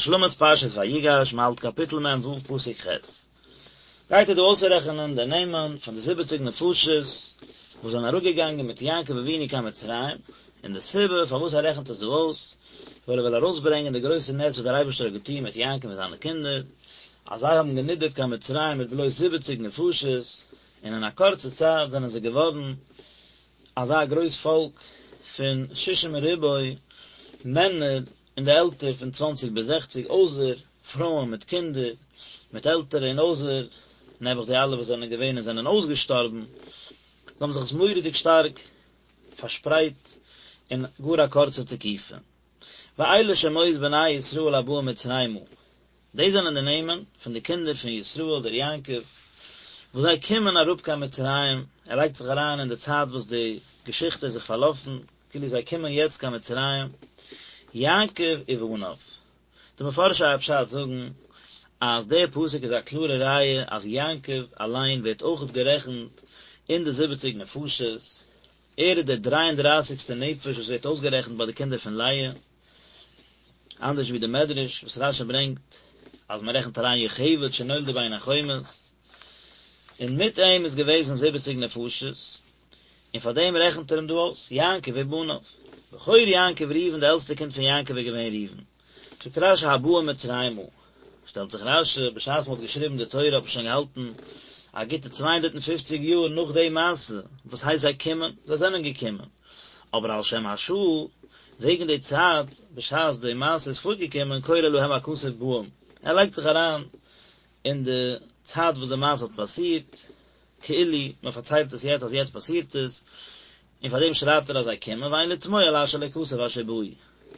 השלמת פרשת ויגש, מ'האלט קאפיטל מ ו פסוק ח'. גייט ער דא אויסרעכענען די נעמען פון די זיבעציג נפשות וואס זענען אראפגעגאנגען מיט יעקב אבינו קיין מצרים, און די סיבה פארוואס ער רעכנט עס דא אויס, ווייל ער וויל ארויסברענגען די גרויסע נס וואס דער אייבערשטער האט געטון מיט יעקב און זיינע קינדער, אז זיי האבן גענידערט קיין מצרים מיט בלויז זיבעציג נפשות, און אין א קורצע צייט זענען זיי געווארן אזא גרויס פאלק פון שישים ריבוא מענער אין די עלטער פון צוואנציג ביז זעכציג, אויסער פרויען מיט קינדער, מיט עלטערע און אויסער נעבעך די אלע וואס זענען געווען און זענען אויסגעשטארבן, זיי האבן זיך עס מורא'דיג שטארק פארשפרייט אין גאר א קורצע תקופה. ואלה שמות בני ישראל הבאים מצרימה, דאס זענען די נעמען פון די קינדער פון ישראל דער יעקב, וואס זיי קומען אראפ קיין מצרים, ער לייגט זיך אריין אין די צייט וואס די געשיכטע איז זיך פארלאפן, כאילו זיי קומען יעצט קיין מצרים, יעקב ובניו. די מפרשי הפשט זאגן אז דער פסוק איז א קלארע ראיה אז יעקב אליין ווערט אויכעט גערעכנט אין די זיבעציג נפשות, ער איז דער דריי און דרייסיגסטער נפש וואס ווערט אויסגערעכנט ביי די קינדער פון לאה, אנדערש ווי די מדרש וואס רשי ברענגט אז מען רעכנט אריין יוכבד שנולדה בין החומות, און מיט אים איז געוועזן זיבעציג נפשות, און פאר דעם רעכנט ער אים דא אויס, יעקב ובניו. בכור יעקב ראובן די עלטסטע קינד פון יעקב איז געווען ראובן. זאגט רשי הבאים מצרימה, שטעלט זיך רשי, בשעת מען האט געשריבן די תורה האט מען שוין געהאלטן א גוטע 250 יאר נאך די מעשה, וואס הייסט זיי קומען? זיי זענען געקומען, אבער על שם השעה, וועגן די צייט בשעת די מעשה איז פארגעקומען קורא להם הכתוב באים, ער לייגט זיך אריין אין די צייט וואס די מעשה האט פאסירט, כאילו מען פארציילט עס יעצט אז יעצט פאסירט עס, און פאר דעם שרייבט ער אז זיי קומען, ואין לתמוה על אשר לא כתב אשר באו,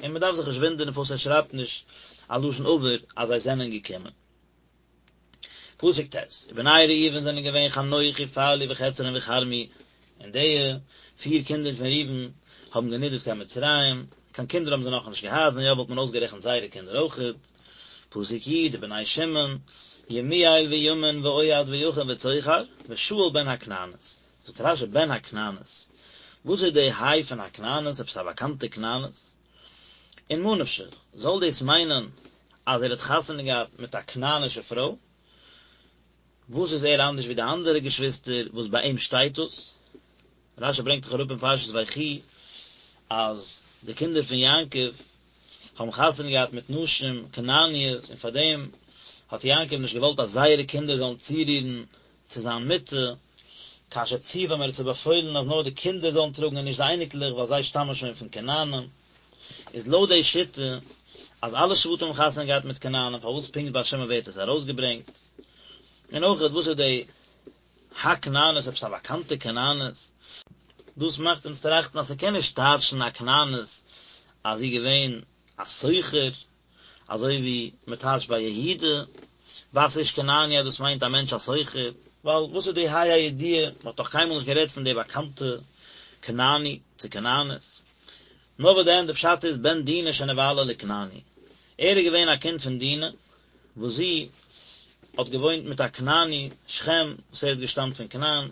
און מען דארף זיך נישט וואונדערן פארוואס ער שרייבט נישט א לשון עבר אז זיי זענען געקומען. פסוק ט', ובני ראובן זענען געווען חנוך ופלוא וחצרון וכרמי, און די פיר קינדער פון ראובן האבן גענידערט קיין מצרים, קיין קינדער האבן זיי נאכנישט געהאט, ווען יא וואלט מען אויסגערעכנט זייערע קינדער אויכעט. פסוק י', ובני שמעון, ימואל וימין ואוהד ויכין וצוחר, ושאול בן הכנענית. זאגט רשי בן הכנענית, וואס איז די היי פון הכנענית, עפעס א באקאנטע כנענית? און מה נפשך, זאל דאס מיינען אז ער האט חתונה געהאט מיט א כנענישע פרוי? וואס איז ער אנדערש ווי די אנדערע געשוויסטער וואס ביי אים שטייט דאס? רשי ברענגט דאך אראפ אין פרשת ויחי אז די קינדער פון יעקב האבן חתונה געהאט מיט נשים כנעניות און פארדעם האט יעקב נישט געוואלט אז זייערע קינדער זאלן צורירן צו זיין מיטה, כאשר ציוום ער האט זיי באפוילן אז נאר די קינדער זאלן טראגן און נישט די אייניקלעך ווייל זיי שטאמען שוין פון כנענים, איז לויט די שיטה אז אלע שבטים האבן חתונה געהאט מיט כנענים פארוואס פונקט ביי שמעון ווערט עס ארויסגעברענגט? און אויכעט וואס איז די הכנענית עפעס א באקאנטע כנענית? דאס מאכט אונז טראכטן אז ס'קען נישט טייטשן הכנענית אז זי איז געווען א סוחר, אזוי ווי מען טייטשט ביי יהודה, בת איש כנעני אז דאס מיינט א מענטש א סוחר, ווייל וואס איז די ה' הידיעה, מען האט דאך קיינמאל נישט גערעדט פון די באקאנטע כנעני צו כנענית. נאר וואס דען, די פשט איז בן דינה שנבעלה לכנעני, ער איז געווען א קינד פון דינה, וואס זי האט געוואוינט מיט א כנעני, שכם, וואס ער האט געשטאמט פון כנען,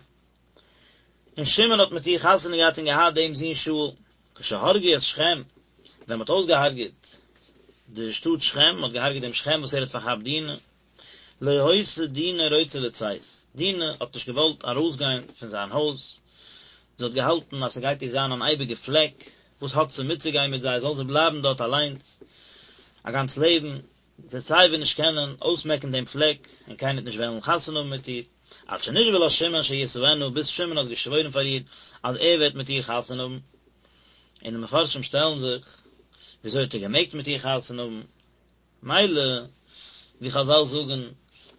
און שמעון האט מיט איר חתונה געהאט און געהאט דעם זון שאול, כשהרגו את שכם, ווען מען האט אויסגעהארגעט די שטאט שכם, מען האט געהארגעט דעם שכם וואס ער האט פארכאפט דינה, לא היתה דינה רוצה לצאת, דינה האט נישט געוואלט ארויסגיין פון זיין הויז, זי האט געהאלטן אז ס'גייט איר זיין אן אייביגע פלעק, וואס האט זי מיטצוגיין מיט זיי, זאל זי בלייבן דארט אליינס א גאנץ לעבן, זי וועט סייווי נישט קענען אויסמעקן דעם פלעק, און קיינער וועט נישט וועלן חתונה האבן מיט איר, עד שנשבע לה שמעון שישאנה, ביז שמעון האט געשוואוירן פאר איר אז ער וועט מיט איר חתונה האבן. און די מפרשים שטעלן זיך, וויאזוי האט ער געמעגט מיט איר חתונה האבן? מילא, ווי חזל זאגן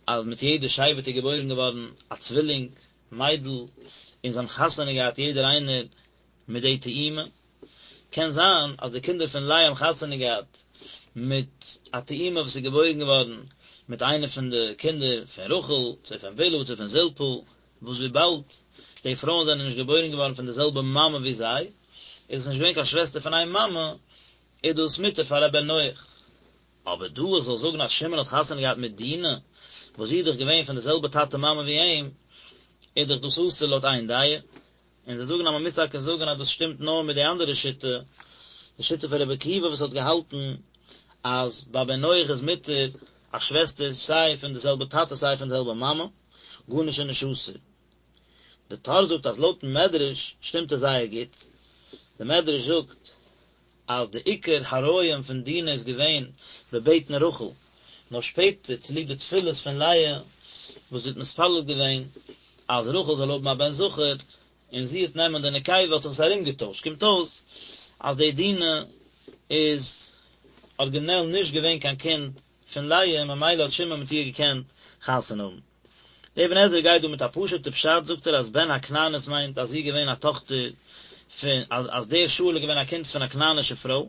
אז מיט יעדע שבט איז געבוירן געווארן א צווילינג מיידל, און זיי האבן חתונה געהאט יעדער איינער מיט די תאומה, קען זיין אז די קינדער פון לאה האבן חתונה געהאט מיט א תאומה וואס איז געבוירן געווארן מיט איינע פון די קינדער פון רחל, צו פון בלהה צו פון זלפה, וואס וויבאלד די פרויען זענען נישט געבוירן געווארן פון די זעלבע מאמע ווי זיי, איז עס נישט געווען קיין שוועסטער פון איין מאמע, איז דאס מותר פאר א בן נח. אבער דא איך זאל זאגן אז שמעון האט חתונה געהאט מיט דינה, וואס זי איז דאך געווען פון די זעלבע טאטע מאמע ווי אים, איז דאך דאס אסור לויט איין דעה. און זיי זאגן אז מען מוז טאקע זאגן אז דאס שטימט נאר מיט די אנדערע שיטה, די שיטה פון רבי עקיבא וואס האט געהאלטן אז ביי בן נח איז מותר א שוועסטער סיי פון די זעלבע טאטע סיי פון די זעלבע מאמע, גארנישט איז נישט אסור. די טור זאגט אז לויטן מדרש שטימט עס זייער גוט, די מדרש זאגט אז די עיקר הריון פון דינה איז געווען בבטן רחל, נאר שפעטער צוליב די תפילות פון לאה וואס זי האט מתפלל געווען אז רחל זאל האבן א בן זכר און זי וועט נעמען די נקבה האט זיך עס ארומגעטוישט, קומט אויס אז די דינה איז ארגינעל נישט געווען קיין קינד פון לאה ממילא האט שמעון מיט איר געקענט חתונה האבן. דער אבן עזרא גייט דא מיט א פשוט'ע פשט, זאגט ער אז בן הכנענית מיינט אז זי איז געווען א טאכטער פון, אז אז דער שאול איז געווען א קינד פון א כנענישע פרוי,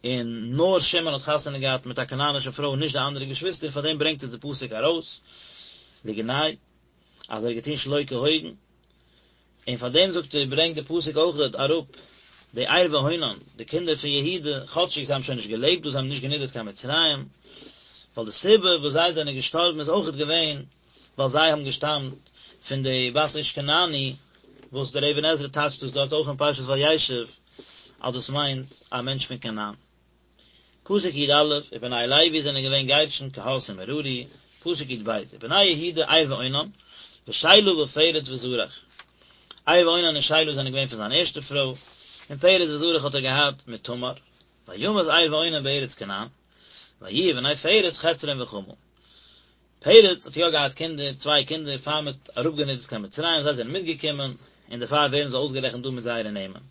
און נאר שמעון האט חתונה געהאט מיט א כנענישע פרוי און נישט די אנדערע געשוויסטער, פאר דעם ברענגט עס די פסוק ארויס, לגנאי, אז ער האט געטון שלא כהוגן. און פאר דעם זאגט ער ברענגט די פסוק אויכעט אראפ די ער ואונן, די קינדער פון יהודה, כאטשיג זיי האבן שוין נישט געלעבט דא, זיי האבן נישט גענידערט קיין מצרים, ווייל די סיבה וואס זיי זענען געשטארבן איז אויכעט געווען ווייל זיי האבן געשטאמט פון די בת איש כנעני, וואס דער אבן עזרא טייטשט דאס דארט אויך אין פרשת וישב אז דאס מיינט א מענטש פון כנען. פסוק י א, ובני לוי זענען געווען גרשון קהת און מררי, פסוק י ב, ובני יהודה ער ואונן, ושלה ופרץ וזרח. ער ואונן און שלה זענען געווען פון זיין ערשטע פרוי, און פרץ וזרח האט ער געהאט מיט תמר, וימת ער ואונן בארץ כנען, ויהיו בני פרץ חצרון וחמול. פרץ האט יא געהאט קינדער, צוויי קינדער, פאר מען האט אראפגענידערט קיין מצרים, זיי זענען מיטגעקומען, און דערפאר ווערן זיי אויסגערעכנט דא מיט זייערע נעמען.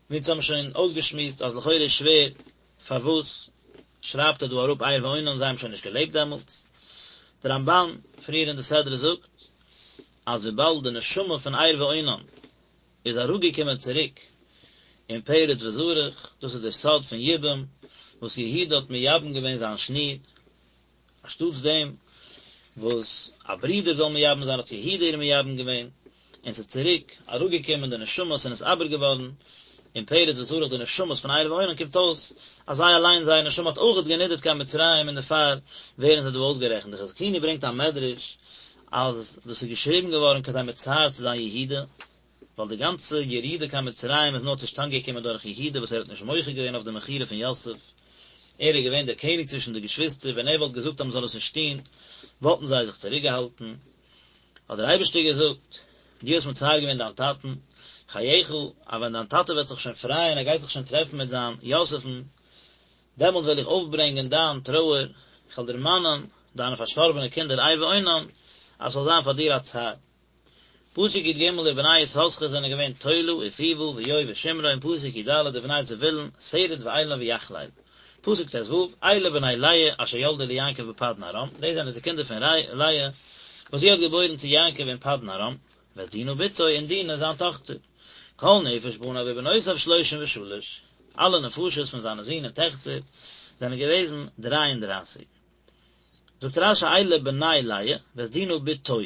מיר האבן שוין אויסגעשמועסט אז לכאורה איז שווער פארוואס שרייבט ער דא אראפ ער ואונן זיי האבן שוין נישט געלעבט דעמאלטס. דער רמבן פריער אין די סדרה זאגט אז וויבאלד די נשמה פון ער ואונן איז אראפגעקומען צוריק אין פרץ וזרח, דאס איז דער סוד פון יבום וואס יהודה האט מייבם געווען זיין שניר, אנשטאטס דעם וואס א ברודער זאל מייבם זיין האט יהודה איר מייבם געווען, און ס'איז צוריק אראפגעקומען די נשמות און נתעבר געווארן אין פרץ וזרח די נשמות פון ער ואונן קומט אויס אז זיי אליין זייער נשמה האט אויכעט גענידערט קיין מצרים און דערפאר ווערן זיי דא אויסגערעכנט די חזקוני ברענגט א מדרש אז דאס איז געשריבן געווארן כדי מצער צו זיין יהודה ווייל די גאנצע ירידה קיין מצרים איז נאר צושטאנד געקומען דורך יהודה וואס ער האט נישט מוחה געווען אויף די מכירה פון יוסף, ער איז געווען דער קעניג צווישן די געשוויסטער, ווען ער וואלט געזאגט אז מען זאל עס נישט טון, וואלטן זיי זיך צוריקגעהאלטן. האט דער אייבערשטער געזאגט, דו האסט מצער געווען דיין טאטן, חייך, אז ווען דיין טאטע וועט זיך שוין פרייען, ער גייט זיך שוין טרעפן מיט זיין יוסף'ן, דעמאלט וועל איך אויפברענגען דיין טרויער, איך וועל דערמאנען דיינע פארשטארבענע קינדער ער ואונן, אז ס'זאל זיין פאר דיר א צער. פסוק י ג ובני יששכר זענען געווען תולע ופוה ואיוב ושמרון פסוק י ד ובני זבולון סרד ואילון ויחלאל פסוק ט ו אלה בני לאה אשר ילדה ליעקב בפדן ארם דאס זענען די קינדער פון לאה וואס זי האט געבוירן צו יעקב אין פדן ארם ואת דינה בתו און דינה זיין טאכטער כל נפש בניו ובנותיו שלושים ושלש אלע נפשות פון זיינע זין און טעכטער זענען געוועזן דריי און דרייסיג זאגט רש י אלה בני לאה ואת דינה בתו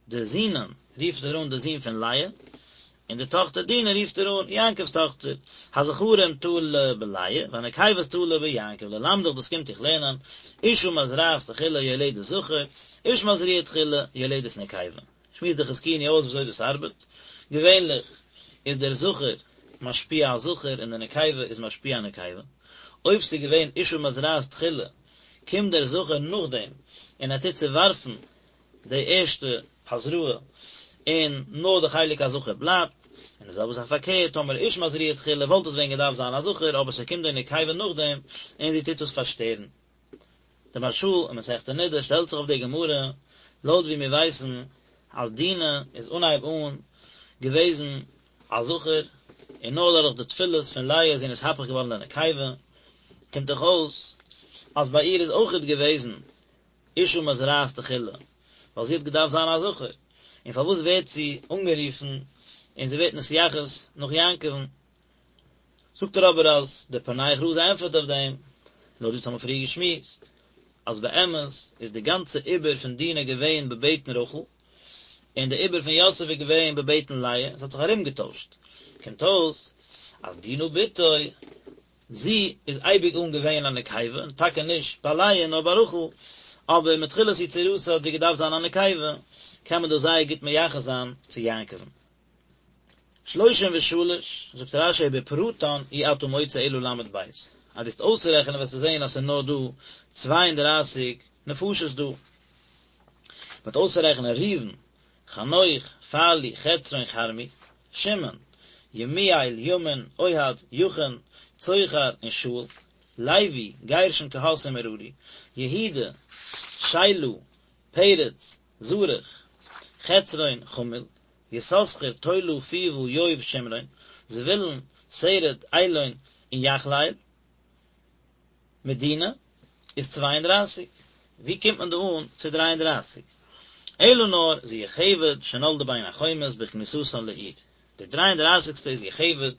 די זינען רופט ער אן די זין פון לאה, און די טאכטער דינה רופט ער אן יעקב'ס טאכטער, הזכרים תלה בלאה, והנקבות תלה ביעקב, ללמדך דאס קומט דיך לערנען, אשה מזרעת תחילה יולדת זכר, איש מזריע תחילה יולדת נקבה. שמועסט די חזקוני אויס וויאזוי דאס ארבעט, געווענליך איז דער זכר משפיע א זכר און די נקבה איז משפיע א נקבה, אויב ס'איז געווען אשה מזרעת תחילה, קומט דער זכר נאכדעם און ער טוט צעווארפן די ערשטע הזרעה און נאר די חלק הזכר בלייבט, און די זעלבע זאך פארקערט, טאמער איש מזריע תחילה וואלט עס ווען געדארפט זיין א זכר אבער ס'קומט די נקבה נאכדעם און זי טוט עס פארשטערן. די מהרש"א אין מסכת נדה שטעלט זיך אויף די גמרא, לויט ווי מיר ווייסן אז דינה איז אנהייב אן געוועזן א זכר, און נאר דורך די תפילות פון לאה איז זי נתהפך געווארן לנקבה, קומט דאך אויס אז ביי איר איז אויכעט געוועזן אשה מזרעת תחילה, ווייל זי האט געדארפט זיין א זכר, און פארוואס ווערט זי אנגערופן און זי ווערט נתייחס נאך יעקב'ן? זאגט ער אבער אז דער פענח רזא ענטפערט אויף דעם, לויט ווי אונז האבן פריער געשמועסט, אז באמת איז די גאנצע עיבור פון דינה געווען בבטן רחל, און די עיבור פון יוסף איז געווען בבטן לאה, עס האט זיך ארומגעטוישט, קומט אויס אז דינה בתו זי איז אייביג אן געווען א נקבה, און טאקע נישט ביי לאה נאר ביי רחל, אבער מתחילת יצירתה האט זי געדארפט זיין א נקבה, קען מען דאס זייער גוט מייחס זיין צו יעקב'ן. שלושים ושלש, זאגט רש"י בפרטן אי אתה מוצא אלא ל"ב. אז דו וועסט אויסרעכענען וועסטו זען אז ס'איז נאר דא 32 נפשות דא. מ'וועט אויסרעכענען ראובן, חנוך, פלוא, חצרון, כרמי, שמעון, ימואל, ימין, אוהד, יכין, צוחר, און שאול, לוי, גרשון, קהת און מררי, יהודה, שלה, פרץ, זרח, חצרון, חמול, יששכר, תולע, פוה, יוב, שמרון, זבולון, סרד, אלון, און יחלאל. מיט דינה איז 32. ווי קומט מען דא אן צו 33? אלא נאר זו יוכבד שנולדה בין החומות בכניסתן לעיר. די דריי און דרייסיגסטע איז יוכבד,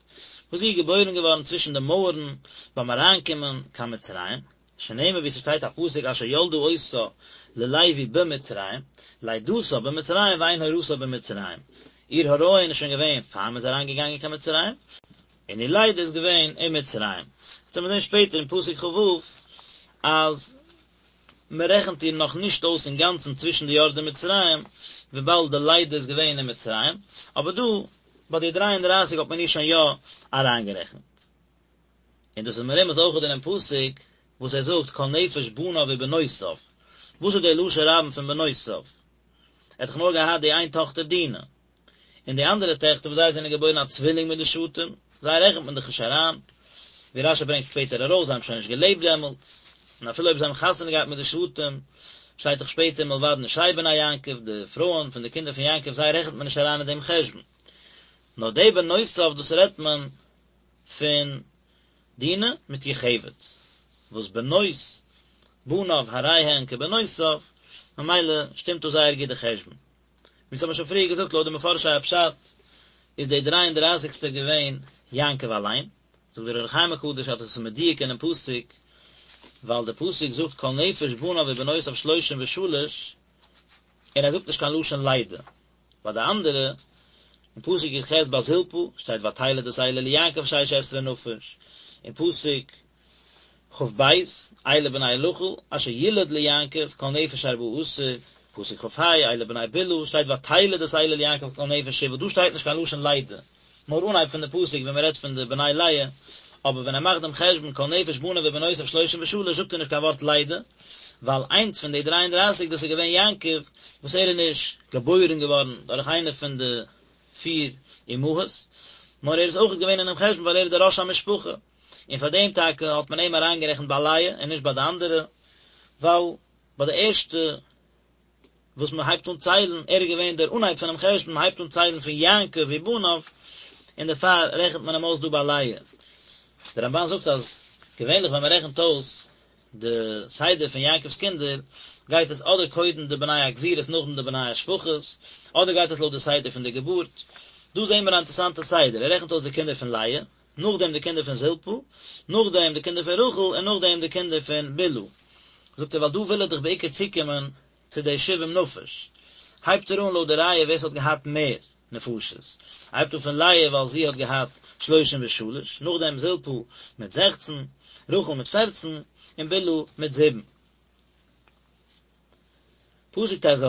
וואס זי איז געבוירן געווארן צווישן די מויערן ביים אריינקומען קיין מצרים, שנאמר ווי ס'שטייט א פסוק אשר ילדה אותה ללוי במצרים, לידתה במצרים ואין הורתה במצרים, איר הריון איז שוין געווען פאר מ'איז אריינגעגאנגען קיין מצרים, און איר לידה איז געווען אין מצרים. יעצט וועט מען זען שפעטער אין פסוק כ"ו אז מען רעכנט איר נאך נישט אויס אינגאנצן צווישן די יורדי מצרים, וויבאלד די לידה איז געווען אין מצרים, אבער דא ביי די דריי און דרייסיג האט מען איר שוין יא אריינגערעכנט. און דאס איז מרומז אויך אינעם פסוק וואס ער זאגט כל נפש בניו ובנותיו, וואס איז דער לשון רבים פון בנותיו? ער האט דאך נאר געהאט די איין טאכטער דינה, און די אנדערע טעכטער וואס זיי זענען געבוירן א צווילינג מיט די שבטים, זיי רעכנט מען דאך נישט אריין, ווי רש"י ברענגט שפעטער ארויס, זיי האבן שוין נישט געלעבט דעמאלטס, און אפילו אויב זיי האבן חתונה געהאט מיט די שבטים, שטייט דאך שפעטער מלבד נשי בני יעקב, די פרויען פון די קינדער פון יעקב, זיי רעכנט מען נישט אריין אין דעם חשבון. נאר די בנותיו דאס רעדט מען פון דינה מיט יוכבד, וואס בנות בניו הרי הן כבנותיו, ממילא שטימט דא זייער גוט די חשבון. ווי אונז האבן שוין פריער געזאגט לויט די מפרשי הפשט איז דער דריי און דרייסיגסטער געווען יעקב אליין, זאגט דער אור החיים הקדוש אז דאס איז מדויק אינעם פסוק, ווייל דער פסוק זאגט כל נפש בניו ובנותיו שלושים ושלש, און ער זאגט נישט קיין לשון לידה, ביי די אנדערע, אין פסוק י"ח ביי זלפה שטייט ותלד את אלה ליעקב שש עשרה נפש, אין פסוק כ"ב, אלה בני רחל, אשר ילד ליעקב, כל נפש ארבעה עשר, פסוק כ"ה, אלה בני בלהה, שטייט ותלד את אלה ליעקב כל נפש שבעה, דא שטייט נישט קיין לשון לידה, נאר אנהייב פון די פסוק ווען מען רעדט פון די בני לאה, אבער ווען ער מאכט דעם חשבון כל נפש בניו ובנותיו שלושים ושלש זאגט ער נישט קיין ווארט לידה, ווייל איינס פון די דריי און דרייסיג דאס איז געווען יעקב, וואס ער איז נישט געבוירן געווארן דורך איינע פון די פיר אמהות, נאר ער איז אויך געווען אינעם חשבון ווייל ער איז דער ראש המשפחה. און פאר דעם טאקע האט מען אים אריינגערעכנט ביי לאה און נישט ביי די אנדערע, ווייל ביי די ערשטע וואס מען הייבט אן ציילן, ער איז געווען דער אנהייב פונעם חשבון, מען הייבט אן ציילן פון יעקב ובניו, און דערפאר רעכנט מען אים אויס דא ביי לאה. דער רמב"ן זאגט אז געווענליך ווען מען רעכנט אויס די סדר פון יעקב'ס קינדער, גייט עס אדער קודם די בני הגבירות נאכדעם די בני השפחות, אדער גייט עס לויט די סדר פון די געבורט. דא זעהן מיר א אינטערעסאנטע סדר, ער רעכנט אויס די קינדער פון לאה, נאכדעם די קינדער פון זלפה, נאכדעם די קינדער פון רחל, און נאכדעם די קינדער פון בלהה. זאגט ער ווייל דא וויל ער דאך בעיקר צוקומען צו די שבעים נפש. הייבט ער אן לויט די רייע ווער ס'האט געהאט מער נפשות. ער הייבט אן פון לאה ווייל זי האט געהאט שלושים ושלש, נאכדעם זלפה מיט זעכצן, רחל מיט פערצן, און בלהה מיט זיבן. פסוק ט"ז,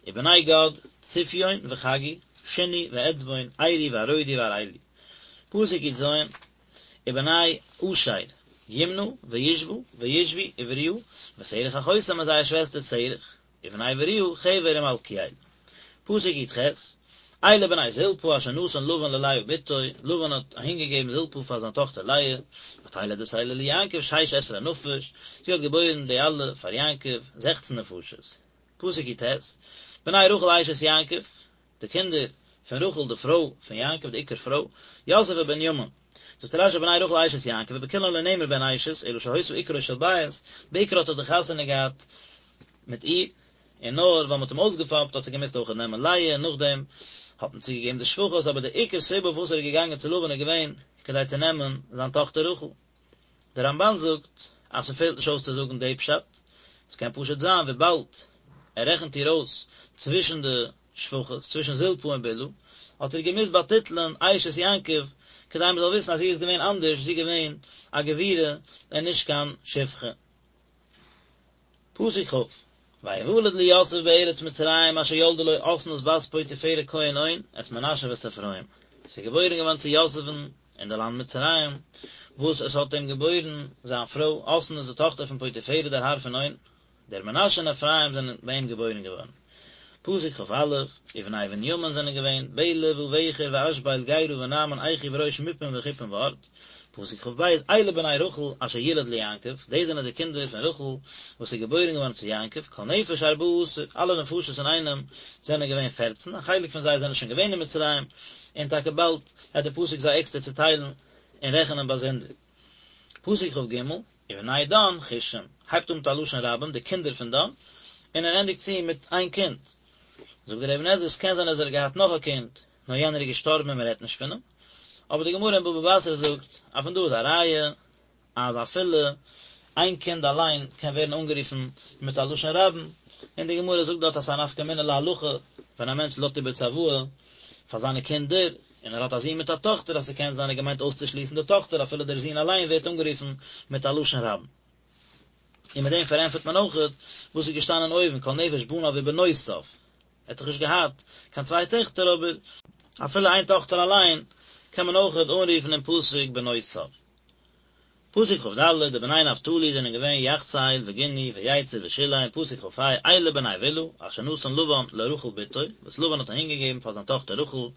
ובני גד, צפיון וחגי, שוני ואצבון, ערי וארודי ואראלי. פסוק י"ז, ובני אשר, ימנה וישוה וישוי ובריעה, ושרח אחותם און זייער שוועסטער שרח. ובני בריעה, חבר ומלכיאל. פסוק י"ח, אלה בני זלפה אשר נתן לבן ללאה בתו, לבן האט אהינגעגעבן זלפה פאר זיין טאכטער לאה, ותלד את אלה ליעקב שש עשרה נפש, זי האט געבוירן די אלע פאר יעקב, זעכצן נפשות. פסוק י"ט, בני רחל אשת יעקב, די קינדער פון רחל די פרוי פון יעקב די עיקר פרוי, יוסף ובנימין. זאגט רש"י בני רחל אשת יעקב ובכולן לא נאמר בהן אשת, אלא שהיתה עיקרו של בית, בעיקר האט ער דאך חתונה געהאט מיט איר, און נאר ווייל מ'האט אים אויסגעפאפט האט ער געמוזט אויכעט נעמען לאה, און נאכדעם האט מען צוגעגעבן די שפחות, אבער די עיקר סיבה פארוואס ער איז געגאנגען צו לבן איז געווען כדי צו נעמען זיין טאכטער רחל. דער רמב"ן זאגט אז ס'פעלט נישט אויס צו זאגן די פשט, ס'קען פשוט זיין וויבאלד ער רעכנט איר אויס צווישן די שפחות, צווישן זלפה און בלהה, האט ער געמוזט באטיטלען אשת יעקב כדי מ'זאל וויסן אז זי איז געווען אנדערש, זי איז געווען א גבירה און נישט קיין שפחה. פסוק כ', ויולד ליוסף בארץ מצרים אשר ילדה לו אסנת בת פוטיפרע כהן און, את מנשה ואת אפרים. ס'איז געבוירן געווארן צו יוסף'ן אין די לאנד מצרים, וואס עס האט אים געבוירן זיין פרוי אסנת די טאכטער פון פוטיפרע דער האר פון און, דער מנשה און אפרים זענען ביי אים געבוירן געווארן. פסוק כ"א, ובני בנימין זענען געווען, בלע ובכר ואשבל גרא ונעמן אחי וראש מופים וחופים וארד. פסוק כ"ב, אלה בני רחל אשר ילד ליעקב, דאס זענען די קינדער פון רחל וואס איז געבוירן געווארן צו יעקב, כל נפש ארבעה עשר, אלע נפשות אינאיינעם זענען געווען פערצן, א חלק פון זיי זענען שוין געווען אין מצרים, און טאקע באלד וועט דער פסוק זיי עקסטער צוטיילן און רעכענען באזונדער. פסוק כ"ג, ובני דן חושים, הייבט אן מיט א לשון רבים, די קינדער פון דן, און ער ענדיגט צו מיט איין קינד. זאגט דער אבן עזרא, עס קען זיין אז ער האט געהאט נאך א קינד, נאר יענער איז געשטארבן און מען רעדט נישט פון אים. אבער די גמרא אין בבא בתרא זאגט אז פון דא איז א ראיה אז אפילו איין קינד אליין קען ווערן אנגערופן מיט א לשון רבים, און די גמרא זאגט דארט אז ס'איז א נפקא מינה להלכה ווען א מענטש לאזט איבער צוואה פאר זיינע קינדער, און ער האט א זון מיט א טאכטער אז ס'קען זיין ער האט געמיינט אויסצושליסן די טאכטער אפילו דער זון אליין ווערט אנגערופן מיט א לשון רבים. און מיט דעם פארענטפערט מען אויכעט וואס איז געשטאנען אויבן כל נפש בניו ובנותיו, ער האט דאך נישט געהאט קיין צוויי טעכטער אבער אפילו איין טאכטער אליין קען מען אויכעט אנרופן אין פסוק בנותיו. פסוק כ"ד, די בני נפתלי זענען געווען יחצאל וגוני ויצר ושלם, פסוק כ"ה, אלה בני בלהה, אשר נתן לבן לרחל בתו, וואס לבן האט אהינגעגעבן פאר זיין טאכטער רחל,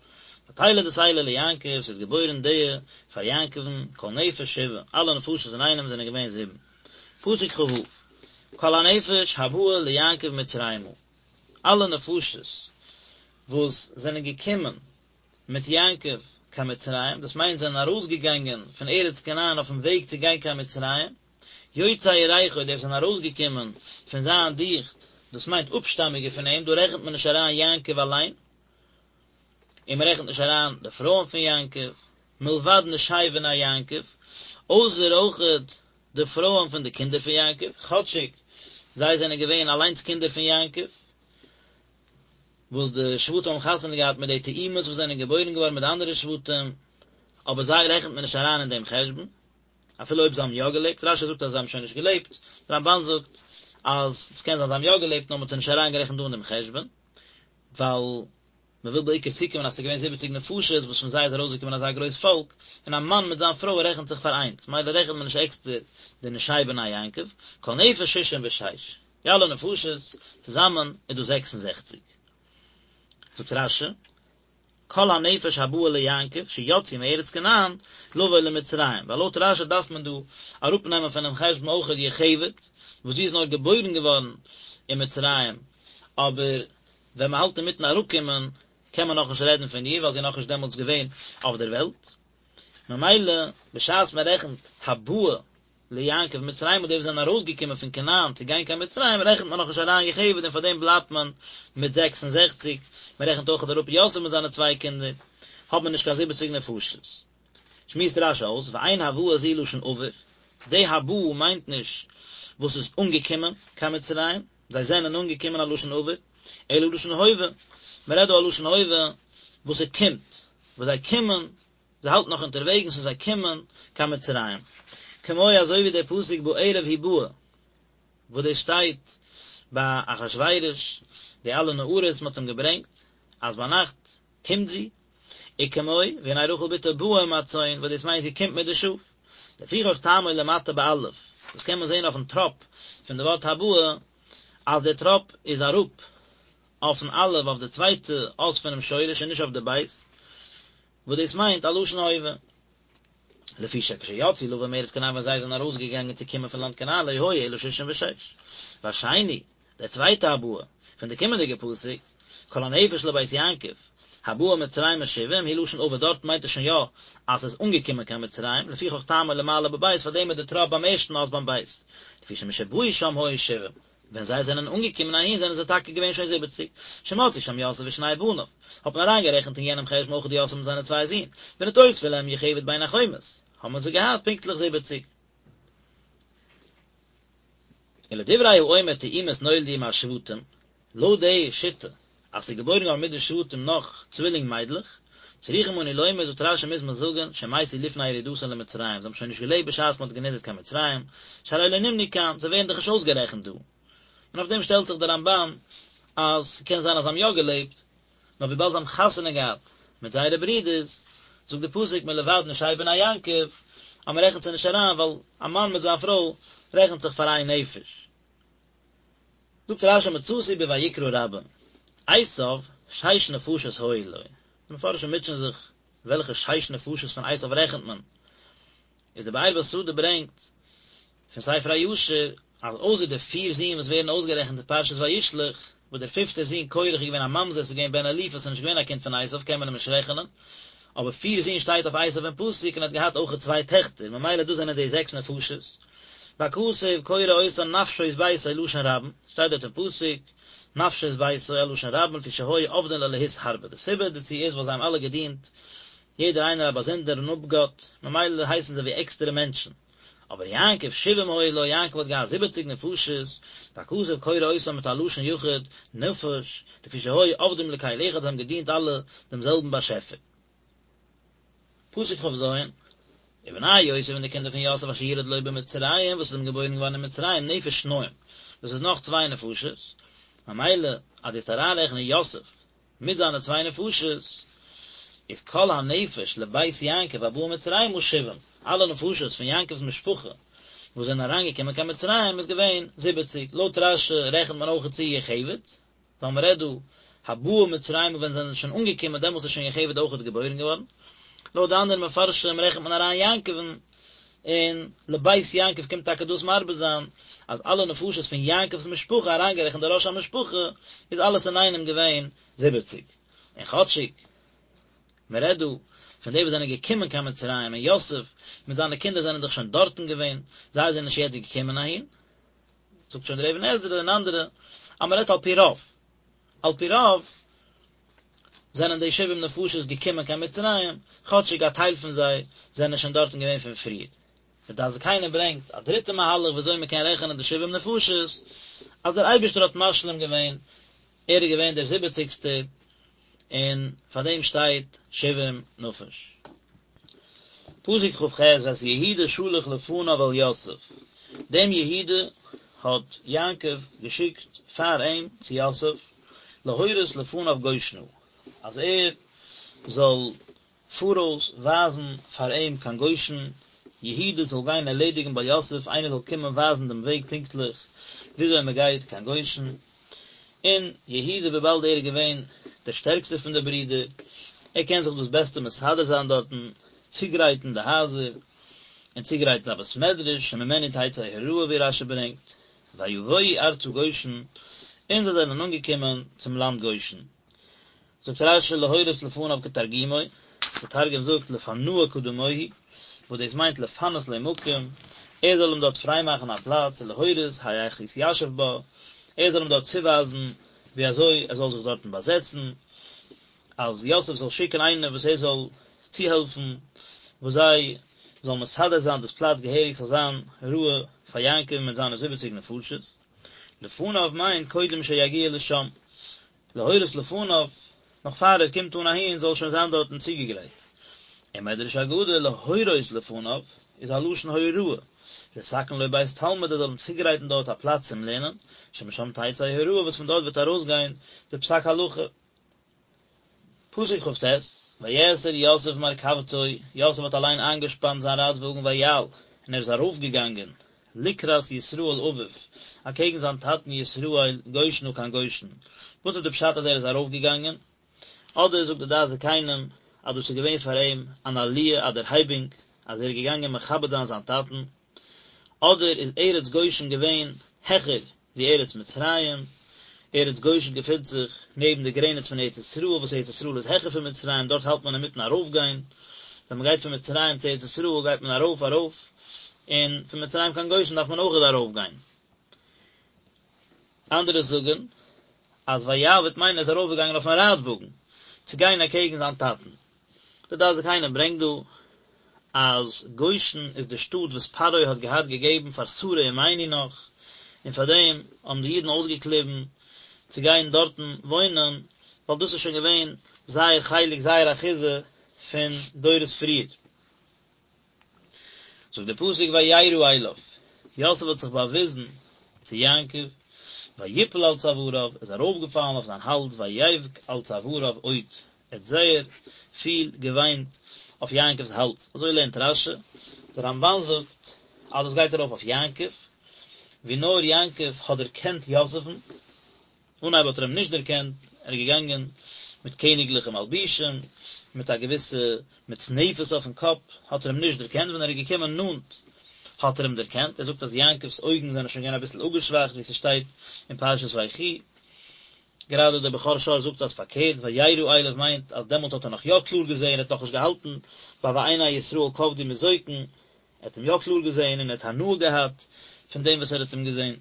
ותלד את אלה ליעקב, ס'איז געבוירן די פאר יעקב'ן, כל נפש שבעה, אלע נפשות אינאיינעם זענען געווען זיבן. פסוק כ"ו, כל הנפש הבאה ליעקב מצרימה, אלע נפשות וואס זענען געקומען מיט יעקב קיין מצרים, דאס מיינט זיי זענען ארויסגעגאנגען פון ארץ כנען אויפן וועג צו גיין קיין מצרים, יוצאי ירכו, די וואס זענען ארויסגעקומען פון זיין דיכט, דאס מיינט אפשטאמיגע פון אים, דא רעכנט מען נישט אריין יעקב אליין, און מען רעכנט נישט אריין די פרויען פון יעקב, מלבד נשי בני יעקב, אויסער אויכעט די פרויען פון די קינדער פון יעקב, כאטשיג זיי זענען געווען אליינס קינדער פון יעקב, וואס די שבטים האבן חתונה געהאט מיט די תאומות וואס זענען געבוירן געווארן מיט די אנדערע שבטים, אבער זיי רעכנט מען נישט אריין אין דעם חשבון, אפילו אויב זיי האבן יא געלעבט, רש"י זאגט אז זיי האבן שוין נישט געלעבט, דער רמב"ן זאגט אז עס קען זיין זיי האבן יא געלעבט נאר מען האט זיי נישט אריינגערעכנט דא אין דעם חשבון, ווייל מען וויל בעיקר צוקומען אז עס איז געווען זיבעציג נפשות וואס פון זיי איז ארויסגעקומען אזא גרויס פאלק, און א מאן מיט זיין פרוי רעכנט זיך פאר איינס, מילא רעכנט מען נישט עקסטער די נשי בני יעקב, כל נפש ששים ושש. די אלע נפשות צוזאמען איז דא 66. זאגט רש"י, כל הנפש הבאה ליעקב שיצאו מארץ כנען לבוא למצרים, ווייל לויט רש"י דארף מען דא אראפנעמען פונעם חשבון אויכעט יוכבד, וואס זי איז נאר געבוירן געווארן אין מצרים, אבער ווען מען האלט אינמיטן אראפקומען קען מען נאכנישט רעדן פון איר ווייל זי איז נאכנישט דעמאלטס געווען אויף דער וועלט, ממילא בשעת מען רעכנט הבאה ליעקב מצרימה די וואס זענען ארויסגעקומען פון כנען צו גיין קיין מצרים רעכנט מען נאכנישט אריין יוכבד און פאר דעם בלייבט מען מיט 66, מען רעכנט אויך אראפ יוסף מיט זיינע צוויי קינדער, האט מען נישט קיין זיבעציג נפשות. שמועסט רש"י אויס, ואין הבאה זו לשון עבר, די הבאה מיינט נישט וואס איז אנגעקומען קיין מצרים, זיי זענען אנגעקומען א לשון עבר, אלא לשון הווה, מען רעדט דא א לשון הווה וואס ס'קומט, וואס זיי קומען זיי האלטן נאך אונטערוועגנס און זיי קומען קיין מצרים. כמו אזוי ווי דער פסוק בערב היא באה, וואס דאס שטייט ביי אחשורוש, די אלע נערות מען האט אים געברענגט, אז ביינאכט קומט זי, וכמו והנה רחל בתו באה עם הצאן, וואס דאס מיינט זי קומט מיט די שאף. לפיכך טעמו למטה באלף, דאס קען מען זען אויפן טראפ פון די ווארט הבאה, אז דער טראפ איז אראפ אויפן אלף אויף די צווייטע אות פונעם שורש און נישט אויף די בית, וואס דאס מיינט א לשון הווה. לפי שכשיצאו לבוא מארץ כנען ווען זיי זענען ארויסגעגאנגען צו קומען פון לאנד כנען לא היו אלא ששים ושש. והשני, דער צווייטע הבאה, פון די קומענדיגע פסוק, כל הנפש לבית יעקב, הבאה מצרימה שבעים, הוא לשון עבר דארט מיינט עס שוין יא אז עס איז אנגעקומען קיין מצרים, לפיכך טעמו למעלה בבית פארדעם איז די טראפ ביים ערשטן אות ביים בית, לפי שמשבאו שם היו שבעים. ווען זיי זענען אנגעקומען אהין זענען זיי טאקע געווען שוין זיבעציג, שמצאו שם יוסף ושני בניו, האט מען אריינגערעכנט אין יענעם חשבון אויך יוסף מיט זיינע צוויי זין, ונתוספה להם יוכבד בין החומות, האבן זיי געהאט פונקטליך זיבעציג. ולדברי האומר תאומות נולדו עם השבטים, לויט די שיטה אז ס'איז געבוירן געווארן מיט די שבטים נאך צווילינג מיידלעך, צריכים אנו לומר זאגט רש"י מוז מען זאגן שמתו לפני ירידתן למצרים, זיי האבן שוין נישט געלעבט בשעת מ'האט גענידערט קיין מצרים, שהרי לא נמנו כאן, זיי ווערן דאך נישט אויסגערעכנט דא. און אויף דעם שטעלט זיך דער רמב"ן אז ס'קען זיין אז זיי האבן יא געלעבט, נאר וויבאלד זיי האבן חתונה געהאט מיט זייערע ברידערס, זאגט די פסוק מלבד נשי בני יעקב. אז מען רעכנט זיי נישט אריין ווייל א מאן מיט זיין פרוי רעכנט זיך פאר איין נפש. זאגט רשי מצאתי בויקרא רבה, עשיו שש נפשות היו לו, די מפרשים מוטשען זיך וועלכע שש נפשות פון עשיו רעכנט מען, איז די באר בשדה ברענגט פון ספר הישר אז אויסער די פיר זין וואס ווערן אויסגערעכנט אין פרשת וישלח, וואס דער פיפטער זון קורח איז געווען א ממזר, ס'איז געווען בן אליפז, ס'איז נישט געווען א קינד פון עשיו קען מען אים נישט רעכענען, אבער פיר זין שטייט אויף עשיו אין פסוק און ער האט געהאט אויכעט צוויי טעכטער, ממילא דאס זענען די זעקס נפשות. והכתוב קורא אותן נפשות ביתו לשון רבים, שטייט דארט אין פסוק, נפשות ביתו א לשון רבים לפי שהיו עובדין לאלהות הרבה, די סיבה דערצו איז ווייל זיי האבן אלע געדינט יעדער איינער א באזונדערן אפגאט, ממילא הייסן זיי ווי עקסטערע מענטשן. אבער יעקב שבעים היו לו, יעקב האט געהאט זיבעציג נפשות, והכתוב קורא אותם מיט א לשון יחיד, נפש, לפי שהיו עובדים לקל אחד, זיי האבן געדינט אלע דעם זעלבן באשעפער. פסוק כ"ז, ובני יוסף און די קינדער פון יוסף אשר ילד לו במצרים וואס איז אים געבוירן געווארן אין מצרים נפש שניים, דאס איז נאך צוויי נפשות, ממילא אז דו וועסט אריינרעכענען יוסף מיט זיינע צוויי נפשות, איז כל הנפש לבית יעקב הבאה מצרימה שבעים, אלע נפשות פון יעקב'ס משפחה וואס זענען אריינגעקומען קיין מצרים איז געווען זיבעציג, לויט רש"י רעכנט מען אויך צו יוכבד, ווייל מען רעדט דא הבאה מצרימה ווען זיי זענען שוין אנגעקומען דעמאלטס איז שוין יוכבד אויכעט געבוירן געווארן, לויט די אנדערע מפרשים רעכנט מען אריין יעקב'ן, און לבית יעקב קומט טאקע דאס מרבה זיין אז אלע נפשות פון יעקב'ס משפחה אריינגערעכנט די ראש המשפחה איז אלעס אינאיינעם געווען זיבעציג, און כאטשיג מען רעדט דא פון די וואס זענען געקומען קיין מצרים און יוסף מיט זיינע קינדער זענען דאך שוין דארטן געווען, זיי זענען נישט יעצט געקומען אהין, זאגט שוין דער אבן עזרא און אנדערע אז מען רעדט על פי רוב, על פי רוב זענען די שבעים נפשות געקומען קיין מצרים, כאטשיג א טייל פון זיי זענען שוין דארטן געווען פון פריער. דער דעת זקנים ברענגט א דריטע מהלך ווי אזוי מען קען רעכענען די שבעים נפשות, אז דער אייבערשטער האט משלים געווען, ער איז געווען דער זיבעציגסטער, און פאר דעם שטייט שבעים נפש. פסוק כ"ח ואת יהודה שלח לפניו אל יוסף, דעם יהודה האט יעקב געשיקט פאר אים צו יוסף, להורות לפניו גושנה, אז ער זאל פאראויס ווייזן פאר אים קיין גושן, יהודה זאל גיין ערלעדיגן ביי יוסף, איינער זאל קומען ווייזן דעם וועג פונקטליך וויאזוי מען גייט קיין גושן, און יהודה וויבאלד ער איז געווען דער שטערקסטער פון די ברידער, ער קען זיך דאס בעסטע מסדר זיין דארטן, צוגרייטן די הייזער, און צוגרייטן א בית מדרש, שממנו תצא הוראה ווי רש"י ברענגט, ויבואו ארצה גושן, און זיי זענען אנגעקומען צום לאנד גושן. זאגט רש"י להורות לפניו כתרגומו, דער תרגום זאגט לפנאה קדמוהי, וואס דאס מיינט לפנות לו מקום, ער זאל אים דארט פריי מאכן א פלאץ, ולהורות היאך יתיישב בה, ער זאל אים דארט צואווייזן ווי אזוי ער זאל זיך דארטן באזעצן, אז יוסף זאל שיקן איינער וואס ער זאל צוהעלפן, וואס זיי זאלן מסדר זיין דאס פלאץ געהעריג ס'זאל זיין ראוי פאר יעקב מיט זיינע זיבעציג נפשות. לפניו מיינט קודם שיגיע לשם, להורות לפניו, נאך פאר ער קומט אן אהין זאל שוין זיין דארטן צוגעגרייט. און מדרש אגדה להורות לפניו איז א לשון הוראה, לתקן לו בית תלמוד ער זאל אים צוגרייטן דארט א פלאץ צום לערנען, שמשם תצא הוראה וואס פון דארט וועט ארויסגיין די פסק הלכה. פסוק כ"ט, ויאסר יוסף מרכבתו, יוסף האט אליין איינגעשפאנט זיין רייטוואגן ויעל, און ער איז ארויפגעגאנגען, לקראת ישראל אביו, אקעגן זיין טאטן ישראל, גושנה קיין גושן. וואס איז די פשט אז ער איז ארויפגעגאנגען? אדער זאגט די דעת זקנים אז דאס איז געווען פאר אים אן עליה א דערהייבונג אז ער איז געגאנגען מכבד זיין זיין טאטן, אדער איז ארץ גושן געווען העכער ווי ארץ מצרים, ארץ גושן געפינט זיך נעבן די גרעניץ פון ארץ ישראל, וואס ארץ ישראל איז העכער פון מצרים, דארט האלט מען אינמיטן ארויפגיין, ווען מען גייט פון מצרים צו ארץ ישראל גייט מען ארויף ארויף, און פון מצרים קיין גושן דארף מען אויכעט ארויפגיין. אנדערע זאגן אז ויעל וועט מיינען ער איז ארויפגעגאנגען אויפן רייטוואגן צו גיין אקעגן זיין טאטן. די דעת זקנים ברענגט דא אז גושן איז די שטאט וואס פרעה האט געהאט געגעבן פאר שרה אמנו נאך, און פאר דעם האבן די אידן אויסגעקליבן צו גיין דארטן וואוינען, ווייל דאס איז שוין געווען זייער חלק, זייער אחיזה פון דורות פריער. זאגט דער פסוק וירא אליו, יוסף האט זיך באוויזן צו יעקב, ויפל על צואריו, ער איז ארויפגעפאלן אויף זיין האלז, ויבך על צואריו עוד, ער האט זייער פיל געוויינט אויף יעקב'ס האלז, אזוי לערנט רש"י. דער רמבן זאגט אז דאס גייט ארויף אויף יעקב, ווי נאר יעקב האט דערקענט יוסף'ן, אנהייב האט ער אים נישט דערקענט, ער איז געגאנגען מיט קעניגליכע מלבישים, מיט א געוויסע מצנפת אויפן קאפ, האט ער אים נישט דערקענט, ווען ער איז געקומען נאנט האט ער אים דערקענט, ער זאגט אז יעקב'ס אויגן זענען שוין געווען אביסל אפגעשוואכט ווי ס'שטייט אין פרשת ויחי, גראדע דער בכור שור זאגט אז פארקערט, וירא אליו מיינט אז דעמאלט האט ער נאך יא קלאר געזען, ער האט נאכנישט געהאלטן ביי ועיני ישראל כבדו מזוקן, ער האט אים יא קלאר געזען און ער האט הנאה געהאט פון דעם וואס ער האט אים געזען.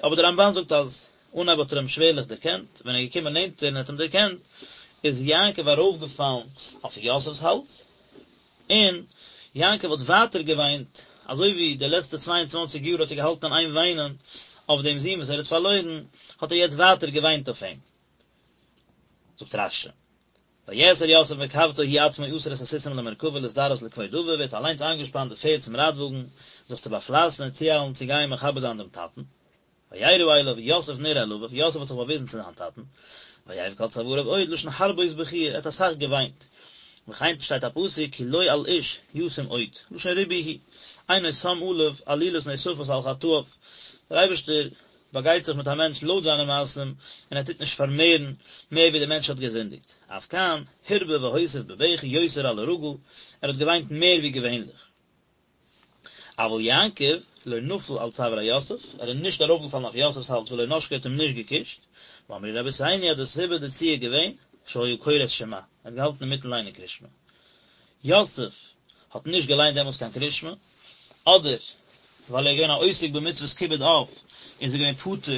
אבער דער רמבן זאגט אז אנהייב האט ער אים שווערליך דערקענט, ווען ער איז געקומען נענטער און האט אים דערקענט, איז יעקב ארויפגעפאלן אויף יוסף'ס האלז, און יעקב האט ווייטער געוויינט, אזוי ווי די לעצטע צוויי און צוואנציג יאר האט ער געהאלטן אין איין וויינען אויף דעם זון וואס ער האט פארלוירן, האט ער יעצט ווייטער געוויינט אויף אים. זאגט רש"י, ויאסר יוסף מרכבתו הוא עצמו אסר את הסוסים למרכבה להזדרז לכבוד אביו, ער האט אליינס איינגעשפאנט די פערד צום רייטוואגן, זיך צו באפלייסן און צואיילן צו גיין מכבד זיין דעם טאטן. וירא אליו, יוסף נראה אל אביו, יוסף האט זיך באוויזן צו זיין טאטן, ויבך על צואריו עוד, לשון הרבות בכיה, ער האט אסאך געוויינט. וכן שטייט א פסוק כי לא על איש ישים עוד, לשון ריבוי הוא, אינו שם עליו עלילות נוספות על חטאיו, דער אייבערשטער באגייט זיך מיט א מענטש לויט זיינע מעשים, און ער טוט נישט פארמערן מער ווי דער מענטש האט געזינדיגט. אף כאן, הרבה והוסיף בבכי יותר על הרגיל, ער האט געוויינט מער ווי געווענליך. אבל יעקב לא נפל על צוארי יוסף, ער איז נישט ארויפגעפאלן אויף יוסף'ס האלז ולא נשקו האט אים נישט געקושט, ואמרו רבותינו אז די סיבה דערצו איז געווען, שהיה קורא את שמע, ער האט געהאלטן אינמיטן ליינען קרישמע. יוסף האט נישט געליינט דעמאלטס קיין קרישמע, אדער ווייל ער איז געווען א עוסק במצוות כיבוד אב, איז ער געווען פטור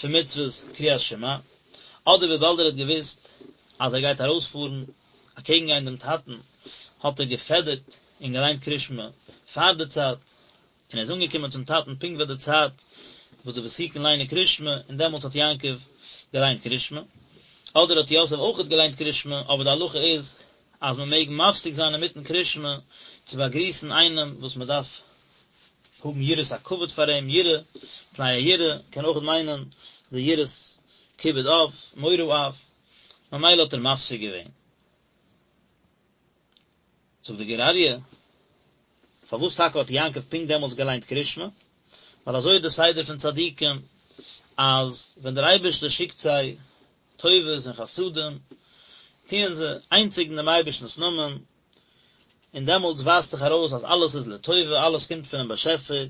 פון מצוות קריאת שמע, אדער וויבאלד ער האט געוואוסט אז ער גייט ארויספארן אקעגן גיין דעם טאטן, האט ער געפעדערט און געליינט קרישמע פאר די צייט, און ער איז אנגעקומען צום טאטן פונקט ביי די צייט וואס די ותיקין ליינען קרישמע, און דעמאלטס האט יעקב געליינט קרישמע. אדער האט יוסף אויכעט געליינט קרישמע, אבער די הלכה איז אז מען מעג מפסיק זיין אינמיטן קרישמע צו באגריסן איינעם וואס מען דארף האבן יראת הכבוד פאר אים, יראה, פני היראה, קען אויכעט מיינען די יראת כיבוד אב, מורא אב, ממילא האט ער מפסיק געווען. זאגט די גור אריה, פארוואס טאקע האט יעקב פונקט דעמאלטס געליינט קרישמע? ווייל אזוי איז די סדר פון צדיקים, אז ווען דער אייבערשטער שיקט זיי טובות און חסדים, טוען זיי איינציגן דעם אייבערשטנ'ס נאמען, און דעמאלטס ווייזט זיך ארויס אז אלעס איז לטובה, אלעס קומט פונעם באשעפער,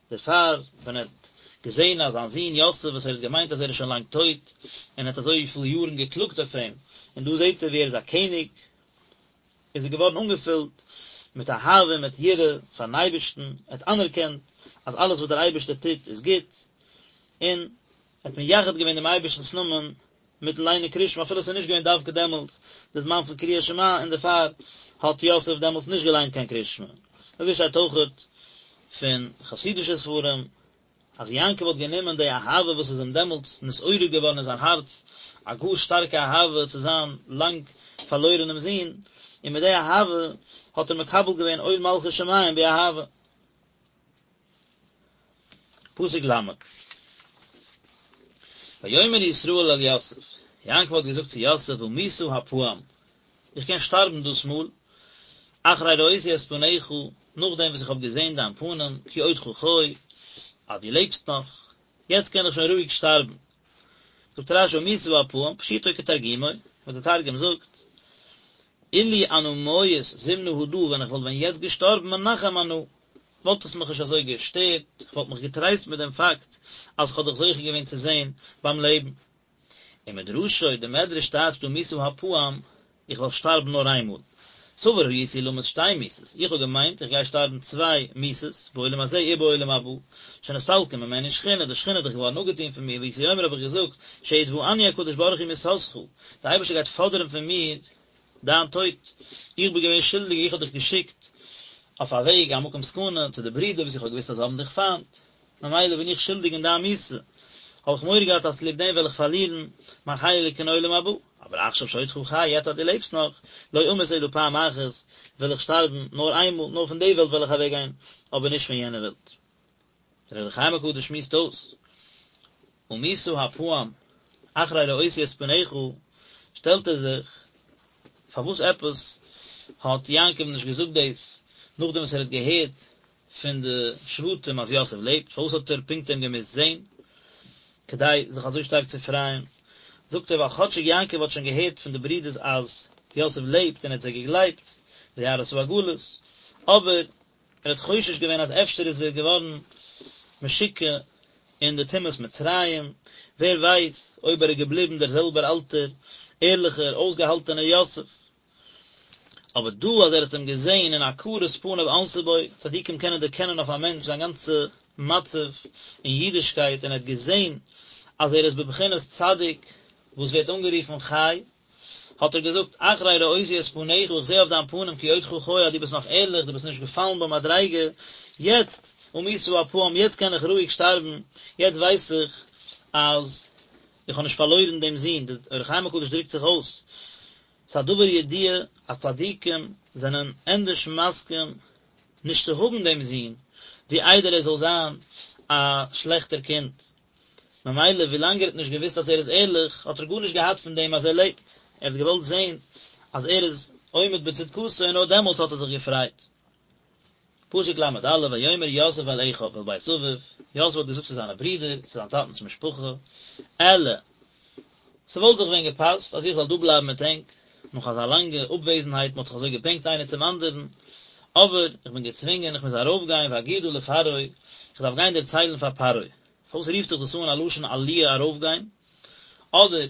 דערפאר ווען ער האט געזען אז זיין זון יוסף וואס ער האט געמיינט אז ער איז שוין לאנג טויט, און ער האט אזויפיל יארן געקלאגט אויף אים, און דא זעט ער ווי ער איז א קעניג, איז ער געווארן אנגעפילט מיט אהבה און מיט יראה פארן אייבערשטן, ער האט אנערקענט אז אלעס וואס דער אייבערשטער טוט איז גוט, און ער האט מייחד געווען דעם אייבערשטנ'ס נאמען מיטן ליינען קרישמע אפילו עס איז נישט געווען דווקא דעמאלטס די זמן פון קריאת שמע און דערפאר האט יוסף דעמאלטס נישט געליינט קיין קרישמע. אזוי שטייט אויכעט פון חסידישע ספרים אז יעקב האט גענומען די אהבה וואס איז אים דעמאלטס נתעורר געווארן אין זיין הארץ, א גאר שטארקע אהבה צו זיין לאנג פארלוירענעם זון, און מיט די אהבה האט ער מקבל געווען עול מלכות שמים באהבה. פסוק ל' ויאמר ישראל אל יוסף, יעקב האט געזאגט צו יוסף אמותה הפעם, איך קען שטארבן דאס מאל, אחרי ראותי את פניך, נאכדעם וואס איך האב געזען דיין פנים, כי עודך חי, אז דו לעבסט נאך, יעצט קען איך שוין רואיג שטארבן. זאגט רש"י אמותה הפעם, פשוטו כתרגומו, וואס דער תרגום זאגט, אילו אנא מיית זימנא הדא, ווען איך וואלט ווען יעצט געשטארבן מנחם אנא, וואלט עס מיך נישט אזוי געשטערט, איך וואלט מיך געטרייסט מיט דעם פאקט אז איך האב דיך זוכה געווען צו זען ביים לעבן. ומדרשו, די מדרש טייטשט אמותה הפעם, איך וועל שטארבן נאר איינמאל. סבור הייתי למות שתי מיתות, איך האב געמיינט איך גיי שטארבן צוויי מיתות, בעולם הזה ובעולם הבא, שנסתלקה ממני שכינה, די שכינה איז דאך געווארן אפגעטון פון מיר, והייתי אומר האב איך געזאגט, שיתבעני הקדוש ברוך הוא מיתתך, דער אייבערשטער גייט פאדערן פון מיר דיין טויט, איך בין געווען שולדיג, איך האב דיך געשיקט אויף א וועג, א מקום סכנה, צו די ברידער וואס איך האב געוואוסט אז זיי האבן דיך פיינט, ממילא בין איך שולדיג אין דיין מיתה, האב איך מורא געהאט אז צוליב דעם וועל איך פארלירן מיין חלק אין עולם הבא, אבער עכשיו שעודך חי, יעצט אז דו לעבסט נאך, לא אמות אלא פעם אחת, וועל איך שטארבן נאר איינמאל, נאר פון די וועלט וועל איך אוועקגיין, אבער נישט פון יענע וועלט. דער אור החיים הקדוש שמועסט אויס, אמותה הפעם, אחרי ראותי את פניך, שטעלט ער זיך, פארוואס עפעס האט יעקב נישט געזאגט דאס נאכדעם וואס ער האט געהערט? פון די שבטים אז יוסף לעבט, פארוואס האט ער פונקט אים געמוזט זען כדי זיך אזוי שטארק צו פרייען? זאגט ער ווייל כאטשיג יעקב האט שוין געהערט פון די ברידערס אז יוסף לעבט און ער האט זיי געגלייבט, וירא את העגלות, אבער ער האט חושש געווען אז אפשר איז ער געווארן משוקע אין די טומאת מצרים, ווער ווייס אויב ער איז געבליבן דער זעלבער אלטער ערליכער אויסגעהאלטענער יוסף. אבער דא אז ער האט אים געזען און הכרת פניו ענתה בו, צדיקים קענען דערקענען אויף א מענטש זיין גאנצע מצב אין אידישקייט און ער האט געזען אז ער איז בבחינת צדיק וואס ווערט אנגערופן חי, האט ער געזאגט, אחרי ראותי את פניך, איך זע אויף דיין פנים כי עודך חי אז דו ביסט נאך ערליך, דו ביסט נישט געפאלן במדריגה, יעצט, אמותה הפעם, יעצט קען איך רואיג שטארבן, יעצט ווייס איך אז איך האב נישט פארלוירן דעם זון, דער אור החיים הקדוש דרוקט זיך אויס, ס'איז א דבר ידוע אז צדיקים זענען ענדערש מסכים נישט צו האבן דעם זון, ווי איידער ער זאל זיין א שלעכטער קינד. ממילא ווילאנג ער האט נישט געוואוסט אז ער איז ערליך האט ער גארנישט געהאט פון דעם אז ער לעבט, ער האט געוואלט זען אז ער איז עומד בצדקתו און נאר דעמאלט האט ער זיך געפרייט. פסוק ל"א ויאמר יוסף אל אחיו ואל בית אביו, יוסף האט געזאגט צו זיינע ברידער, צו זיין טאטנ'ס משפחה, אעלה, ס'וואלט זיך ווען געפאסט אז איך זאל דא בלייבן מיט ענק, נאך אזא לאנגע אפוועזנהייט, מ'האט זיך אזוי געבענקט איינער צום אנדערן, אבער איך בין געצווינגען, איך מוז ארויפגיין ואגידה לפרעה, איך דארף גיין דערציילן פאר פרעה. פארוואס רופט זיך דאס אן א לשון עליה ארויפגיין? אדער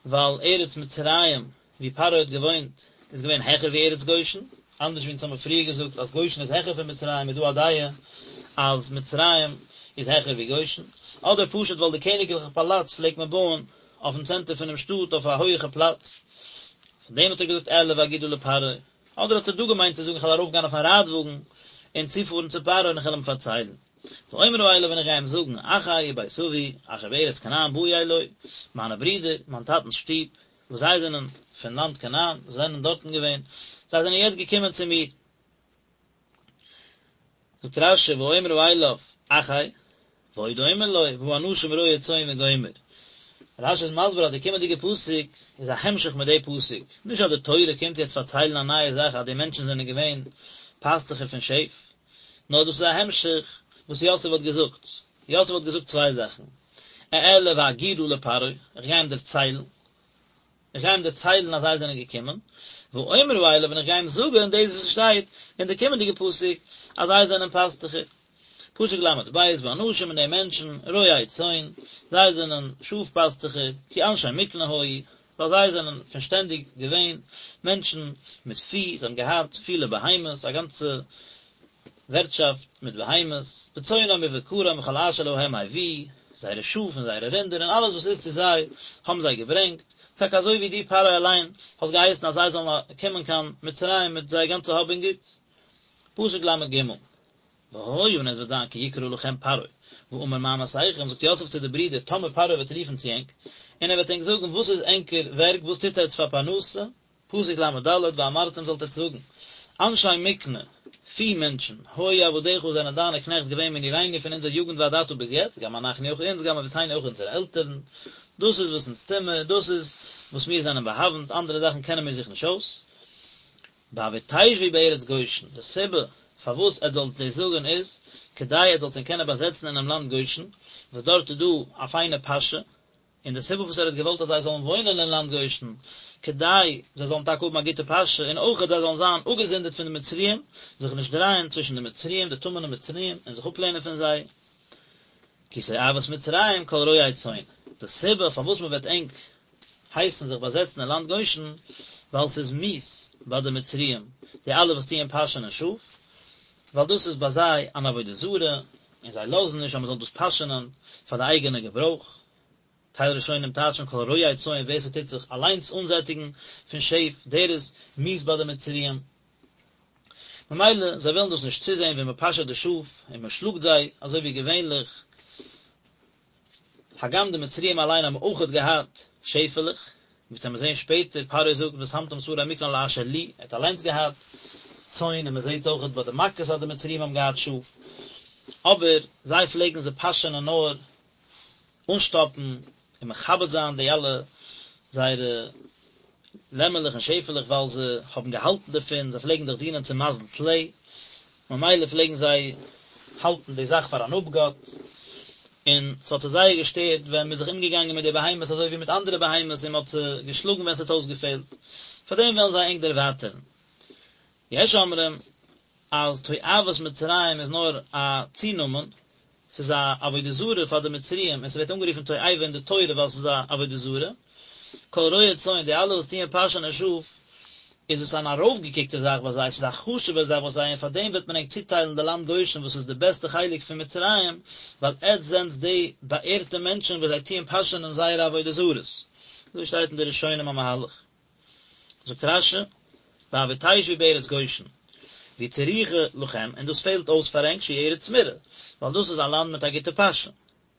ווייל ארץ מצרים ווי פרעה האט געוואוינט איז געווען העכער ווי ארץ גושן, אנדערש ווי אונז האמיר פריער געזאגט אז גושן איז העכער פון מצרים איז דא א דעה אז מצרים איז העכער ווי גושן, אדער פשוט ווייל די קעניגליכע פאלאץ פלעגט מען בויען אויפן צענטער פונעם שטאט אויף א הויעכע פלאץ, פון דעם האט ער געזאגט אעלה ואגידה לפרעה, אדער האט ער דא געמיינט צו זאגן איך וועל ארויפגיין אויפן רייטוואגן און צופארן צו פרעה און איך וועל אים פארציילן. ואומרה אליו און איך גיי אים זאגן, אחי ובית אבי, אשר בארץ כנען באו אלי, מיינע ברידער, מיין טאטנ'ס שטוב, וואס זיי זענען פון לאנד כנען, זיי זענען דארטן געווען, זיי זענען יעצט געקומען צו מיר. זאגט רש"י, ואומרה אליו, אחי, ועוד אומר לו, והאנשים רועי צאן וגומר. רש"י איז מסביר אז די קומענדיגע פסוק איז א המשך מיט די פסוק, נישט אז די תורה קומט יעצט פארציילן א נייע זאך אז די מענטשן זענען געווען פאסטוכער פון שעף, נאר דאס איז א המשך וואס יוסף האט געזאגט. יוסף האט געזאגט צוויי זאכן, אעלה ואגידה לפרעה, איך גיי אים דערציילן, איך גיי אים דערציילן אז זיי זענען געקומען, ואומרה אליו און איך גיי אים זאגן דאס וואס שטייט אין די קומענדיגע פסוק אז זיי זענען פאסטוכער. פסוק ל"ב, והאנשים און די מענטשן, רועי צאן, זיי זענען שאף פאסטוכער, כי אנשי מקנה היו, ווייל זיי זענען פון שטענדיג געווען מענטשן מיט פי, זיי האבן געהאט פילע בהמות, א גאנצע ווערטשאפט מיט בהמות, וצאנם ובקרם וכל אשר להם הביאו, זייערע שאף און זייערע רינדער און אלעס וואס איז צו זיי האבן זיי געברענגט, טאקע אזוי ווי דו פרעה אליין האסט געהייסן אז זיי זאלן קומען קיין מצרים מיט זייער גאנצע האב און גוטס. פסוק ל"ג. והיה און עס וועט זיין כי יקרא לכם פרעה, ואמר מה מעשיכם, זאגט יוסף צו די ברידער, טאמער פרעה וועט רופן צו ענק, און ער וועט ענק זאגן, וואס איז ענקער ווערק, וואס טוט עטץ פאר פרנסה, פסוק ל"ד, ואמרתם זאלט עטץ זאגן, אנשי מקנה, פי מענטשן, היו עבדיך זענען דיינע קנעכט געווען מנעורינו פון אונזער יוגנט ועד עתה ביז יעצט, גם אנחנו אויך אונז, גם אבותינו אויך אונזערע עלטערן, דאס איז וואס אונז טוהן מיר, דאס איז וואס מיר זענען באהאוונט, אנדערע זאכן קענען מיר זיך נישט אויס. בעבור תשבו בארץ גושן, די סיבה פארוואס עטס זאלט דאס זאגן איז, כדי עטס זאלט זיך קענען באזעצן אינעם לאנד גושן, וואס דארט איז דא א פיינע פאשע, און די סיבה וואס ער האט געוואלט אז זיי זאלן וואוינען אין לאנד גושן, כדי זיי זאלן טאקע האבן א גוטע פאשע, און אויכעט זיי זאלן זיין אפגעזונדערט פון די מצריים, זיך נישט דרייען צווישן די מצריים, די טמא'נע מצריים, און זיך אפלערנען פון זיי. כי תועבת מצרים כל רועה צאן, די סיבה פארוואס מען וועט ענק הייסן זיך באזעצן אין לאנד גושן, ווייל ס'איז מיאוס ביי די מצריים, די אלע וואס טוען פאשענען שאף, ווייל דאס איז ביי זיי אן עבודה זרה, און זיי לאזן נישט אז מען זאל דאס פאשענען פאר די אייגענע געברויך. טייל ראשונים טייטשן כל רועה צאן ווער ס'טוט זיך אליינס אנזעטיגן פון שעף, דער איז מיאוס ביי די מצריים. ממילא זיי ווילן דאס נישט צוזען ווי מען פאשעט די שאף און מען שלאגט זיי אזוי ווי געווענליך, הגם די מצריים אליין האבן אויכעט געהאט שעפעלעך, ווי אונז וועלן זעהן שפעטער, פרעה זאגט ושמתם שרי מקנה על אשר לי, ער האט אליינס געהאט צאן און מען זעהט אויכעט ביי די מכות אז די מצריים האבן געהאט שאף, אבער זיי פלעגן זיי פאשענען נאר אנשטאפן און מכבד זיין די אלע זייערע לעמעלעך און שעפעלעך ווייל זיי האבן געהאלטן דערפון, זיי פלעגן דאך דינען צום מזל טלה. ממילא פלעגן זיי האלטן די זאך פאר אן אפגאט, און ס'האט זיי זייער געשטערט ווען מ'איז זיך אומגעגאנגען מיט די בהמות אזוי ווי מיט אנדערע בהמות און מ'האט זיי געשלאגן ווען ס'האט אויסגעפעלט, פאר דעם וועלן זיי ענק דערווייטערן. יש אומרים אז תועבת מצרים איז נאר א צונאמען, ס'איז א עבודה זרה פאר די מצריים און ס'ווערט אנגערופן תועבה אין די תורה ווייל ס'איז א עבודה זרה. כל רועה צאן, די אלע וואס טוען פאשענען שאף, איז עס אן ארויפגעקוקטע זאך ביי זיי, ס'איז א חשוב'ע זאך ביי זיי און פאר דעם וועט מען ענק צוטיילן די לאנד גושן וואס איז די בעסטע חלק פון מצרים, ווייל עטץ זענטס די באערטע מענטשן וואס זיי טוען פאשענען זייערע עבודה זרות. אזוי שטייט אין די ראשונים א מהלך. זאגט רש"י, בעבור תשבו בארץ גושן, והיא צריכה לכם, און דאס פעלט אויס פאר ענק שהיא ארץ מרעה, ווייל דאס איז א לאנד מיט א גוטע פאשע.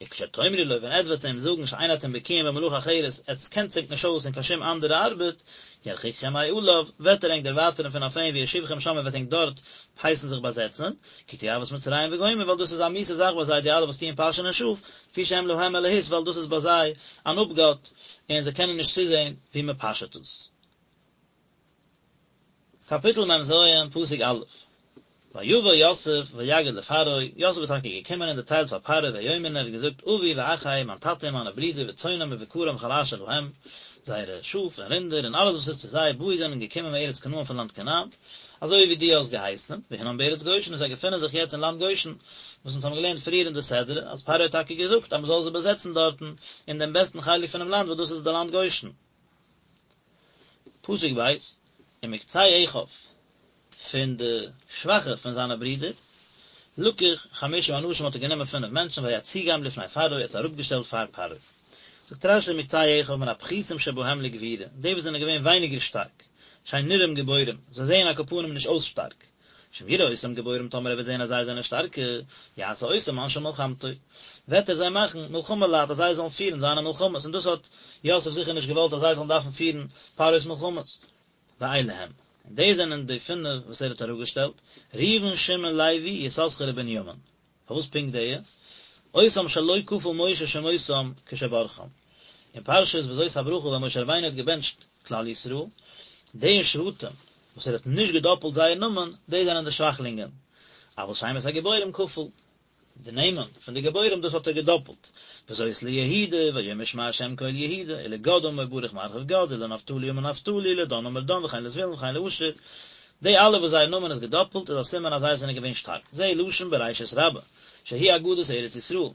וכשתאמרו לו, ווען עטץ וועט צו אים זאגן שאין אתם בקיאים במלאכה אחרת, עטץ קענט זיך נישט אויס אין קיין שום אנדערע ארבעט, ירחיקכם מעליו, וועט ער ענק דערווייטערן פון אויף אים ויושיבכם שם און וועט ענק דארט הייסן זיך באזעצן, כי תועבת מצרים וגומר, ווייל דאס איז א מיאוסע זאך ביי זיי די אלע וואס טוען פאשענען שאף, לפי שהם להם אלהות ווייל דאס איז ביי זיי אן אפגאט און זיי קענען נישט צוזען ווי מען פאשעט עס. קאפיטל מ"ז, פסוק א', ויבא יוסף ויגד לפרעה, יוסף איז טאקע געקומען און דערציילט פאר פרעה ויאמר און ער האט געזאגט אבי ואחי, מיין טאטע און מיינע ברידער וצאנם ובקרם וכל אשר להם, זייערע שאף און רינדער און אלעס וואס איז צו זיי, באו זענען געקומען מארץ כנען פון לאנד כנען, אזוי ווי דו האסט געהייסן, והנם בארץ גושן און זיי געפינען זיך יעצט אין לאנד גושן, וואס אונז האבן געלערנט פריער אין די סדרה, אז פרעה האט טאקע געזאגט אז מען זאל זיי באזעצן דארטן, אין דעם בעסטן חלק פונעם לאנד וואס דאס איז די לאנד גושן. פסוק ב', ומקצה אחיו, פון די שוואכע פון זיינע ברידער, לקח חמשה אנשים האט ער גענומען פינף מענטשן ויציגם לפני פרעה, ער האט זיי אראפגעשטעלט פאר פרעה. זאגט רש"י ומקצה אחיו מן הפחותים שבהם לגבורה, די וואס זענען געווען ווייניגער שטארק, שאין נראים גיבורים, זיי זעען על כל פנים נישט אויס שטארק, שאם יראה אותם גיבורים טאמער ער וועט זען אז זיי זענען שטארקע, יעשה אותם אנשי מלחמתו, וועט ער זיי מאכן מלחמה לייט אז זיי זאלן פירן זיינע מלחמות, און דאס האט יוסף זיכער נישט געוואלט אז זיי זאלן דארפן פירן פרעה'ס מלחמות. ואלה הם, און דאס זענען די פינף וואס ער האט אראפגעשטעלט, ראובן שמעון לוי יששכר ובנימין. פארוואס פונקט די? אותם שלא כפל משה שמותם כשברכם. אין פרשת וזאת הברכה ווען משה רבינו האט געבענטשט כלל ישראל, די שבטים וואס ער האט נישט געדאפלט זייער נאמען, די זענען די שוואכלינגען. אבל שמות הגיבורים כפל. די נעמען פון די גיבורים דאס האט ער געדאפלט. וזאת ליהודה, ויאמר שמע השם קול יהודה, ולגד אמר ברוך מרחיב גד, ולנפתלי אמר נפתלי, ולדן אמר דן, וכן לזבולון וכן לאשר. די אלע וואס זייער נאמען איז געדאפלט איז א סימן אז זיי זענען געווען שטארק, זה לשון בראשית רבה, שהיא אגדת ארץ ישראל.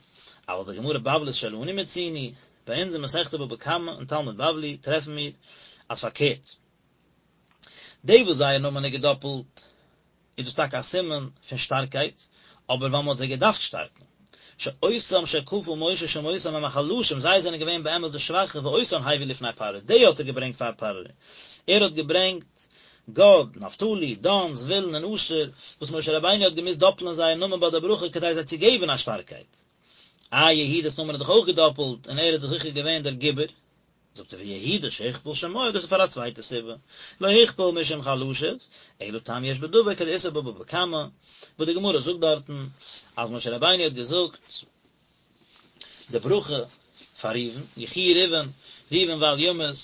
אבל בגמרא בבלית שלנו מצינו, ביי אונז אין מסכת בבא קמא אין תלמוד בבלי טרעפן מיר אז פארקערט, די וואס זייער נאמען איז געדאפלט, איז דאס טאקע א סימן פון שטארקייט, אבער ווייל מען האט זיי געדארפט שטארקן. שאותם שכפל משה שמותם הם החלשים, זיי זענען געווען באמת די שוואכע, ואותן הביא לפני פרעה, די האט ער געברענגט פאר פרעה. ער האט געברענגט גד, נפתלי, דן, זבולון און אשר, וואס משה רבינו האט געמוזט דאפלען זייער נאמען ביי די ברכה כדי זיי צו געבן א שטארקייט. איי יהודה'ס נאמען איז דאך אויך געדאפלט, און ער איז דאך זיכער געווען דער גיבור. זאגט ער ויהודה שהוכפל שמו, דאס איז פאר א צווייטע סיבה, לא הוכפל משום חלשות, אלא טעם יש בדבר כדאיתא בבבא קמא, וואס די גמרא זאגט דארטן אז משה רבינו האט געזאגט די ברכה פאר ראובן, יחי ראובן, ראובן ואל ימות,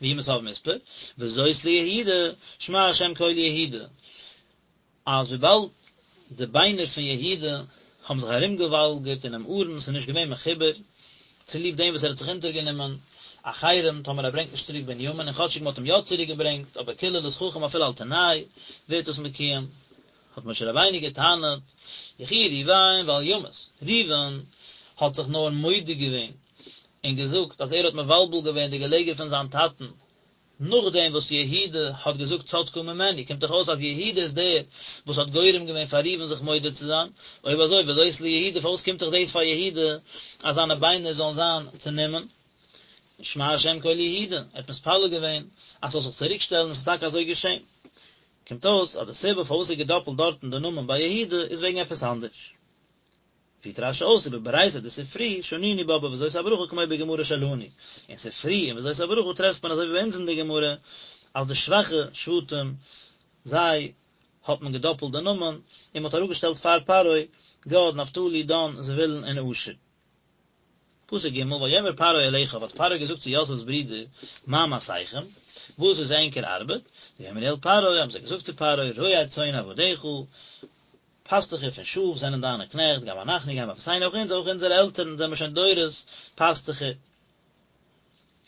וימות אב מספר, וזאת ליהודה, שמע השם קול יהודה. אז וויבאלד די ביינער פון יהודה האבן זיך ארומגעוואלגערט אינעם ארון, ס'איז נישט געווען מחובר, צוליב דעם וואס ער האט זיך אונטערגענומען א חרם טאמער ער ברענגט נישט צוריק בנימין, און כאטשיג מ'האט אים יא צוריק געברענגט, אבער קללת חכם אפילו על תנאי ווערט דאס מקוים, האט משה רבינו גע'טענה'ט, יחי ראובן ואל ימות, ראובן האט זיך נאר מודה געווען און געזאגט אז ער האט מבלבל געווען די געלעגער פון זיין טאטן, נאכדעם וואס יהודה האט געזאגט צדקה ממני, קומט דאך אויס אז יהודה איז דער וואס האט גורם געווען פאר ראובן זיך מודה צו זיין, אויב אזוי וזאת ליהודה פארוואס קומט זיך דאס פאר יהודה אז זיינע ביינער זאלן זיין צענומען? שמע השם קול יהודה, ער האט מתפלל געווען אז ס'זאל זיך צוריק שטעלן און ס'איז טאקע אזוי געשען. קומט אויס אז די סיבה פארוואס איז געדאפלט דארטן די נאמען ביי יהודה איז וועגן עפעס אנדערש. פירט רש"י אויס ובברייתא דספרי שנינו בה בוזאת הברכה כמו בגמרא שלנו, אין ספרי אין וזאת הברכה טרעפט מען אזוי ווי ביי אונז אין די גמרא אז די שוואכע שבטים זיי האט מען געדאפלט די נאמען און מען האט אראפגעשטעלט פאר פרעה גד נפתלי דן זבולון און אשר. פסוק ג' ויאמר פרעה אל אחיו האט פרעה געזאגט צו יוסף'ס ברידער מה מעשיכם וואס איז ענקער ארבעט, ויאמרו אל פרעה האבן זיי געזאגט צו פרעה רועה צאן עבדיך. פאסטוכער פון שאף זענען דיינע קנעכט, גם אנחנו גם אבותינו, אויך אונז, אויך אונזערע עלטערן זענען מיר שוין דורות פאסטוכער.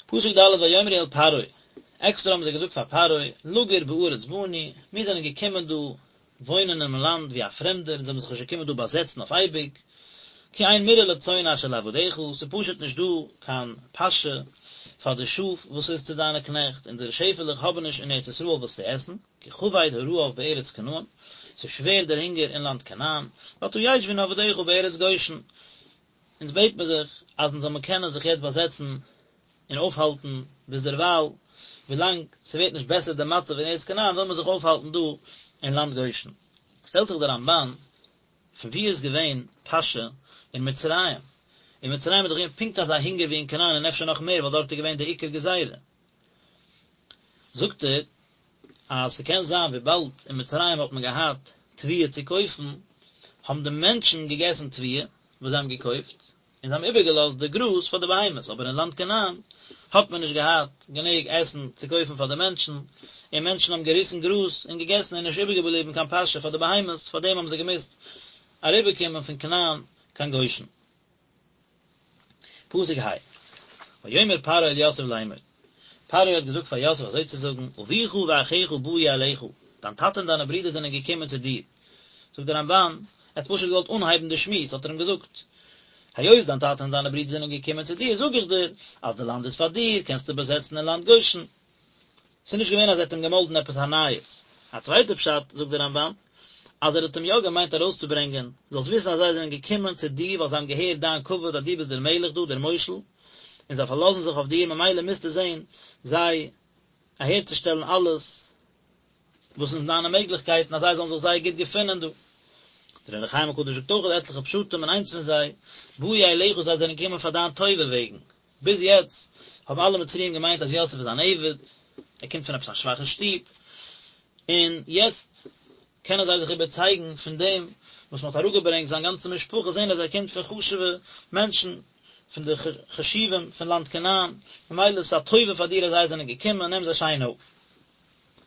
פסוק ד' ויאמרו אל פרעה, עקסטער האבן זיי געזאגט פאר פרעה, לגור בארץ באנו, מיר זענען געקומען דא וואוינען אינעם לאנד ווי א פרעמדער, אונז האבן זיך נישט געקומען דא באזעצן אויף אייביג, כי אין מרעה לצאן אשר לעבדיך, ס'איז פשוט נישט דא קיין פאשע פאר די שאף וואס איז צו דיינע קנעכט, אונזערע שעפעלעך האבן נישט אין ארץ ישראל וואס צו עסן, כי כבד הרעב בארץ כנען, ס'איז שווער דער הונגער אין לאנד כנען, ועתה ישבו נא עבדיך בארץ גושן, אונז בעט מיר זיך אז אונז זאל מיר קענען זיך יעצט באזעצן און אויפהאלטן ביזדערווייל, ווילאנג ס'ווערט נישט בעסער די מצב אין ארץ כנען וויל מען זיך אויפהאלטן דא אין לאנד גושן. שטעלט זיך דער רמב"ן, פון וואו איז געווען פאשע אין מצרים? אין מצרים איז דאך געווען פונקט אזא הונגער ווי אין כנען און אפשר נאך מער ווייל דארט איז געווען די עיקר גזירה. זאגט ער אז ס'קען זיין וויבאלד אין מצרים האט מען געהאט תבואה צו קויפן, האבן די מענטשן געגעסן תבואה וואס זיי האבן געקויפט, און זיי האבן איבערגעלאזט די גראז פאר די בהמות, אבער אין לאנד כנען האט מען נישט געהאט גענוג עסן צו קויפן פאר די מענטשן, און מענטשן האבן געריסן גראז און געגעסן און נישט איבערגעבליבן קיין פאשע פאר די בהמות, פאר דעם האבן זיי געמוזט אריבערקומען פון כנען קיין גושן. פסוק ה', ויאמר פרעה אל יוסף לאמור, פרעה האט געזאגט פאר יוסף אזוי צו זאגן, אביך ואחיך באו אליך, דיין טאטע און דיינע ברידער זענען געקומען צו דיר. זאגט דער רמב"ן, ער האט פשוט געוואלט אנהייבן די שמועס, האט ער אים געזאגט, היות דיין טאטע און דיינע ברידער זענען געקומען צו דיר, זאג איך דיר, אז די לאנד איז פאר דיר, קענסטו באזעצן אין לאנד גושן. ס'איז נישט געווען אז ער האט אים געמאלדן עפעס א נייעס. א צווייטע פשט, זאגט דער רמב"ן, אז ער האט אים יא געמיינט ארויסצוברענגען, זאלסט וויסן אז זיי זענען געקומען צו דיר ווייל זיי האבן געהערט דיין כבוד אז דו ביסט דער מלך דא, דער מושל, און זיי פארלאזן זיך אויף דיר, ממילא מוזטו זען זיי אהערצושטעלן אלעס וואס איז אין דיינע מעגליכקייטן אז זיי זאלן זיך זייער גוט געפינען דא. דער אור החיים הקדוש זאגט אויך עטליכע פשטים און איינס פון זיי, באו אליך זיי זענען געקומען פאר דיין טובה וועגן, ביז יעצט האבן אלע מצריים געמיינט אז יוסף איז אן עבד, ער קומט פון עפעס א שוואכע שטוב, און יעצט קענען זיי זיך איבערצייגן פון דעם וואס מען האט אראפגעברענגט זיין גאנצע משפחה, זען אז ער קומט פון חשוב'ע מענטשן, פון די חשובים פון לאנד כנען, ממילא איז עס א טובה פאר דיר אז זיי זענען געקומען, נעם זיי שיין אויף.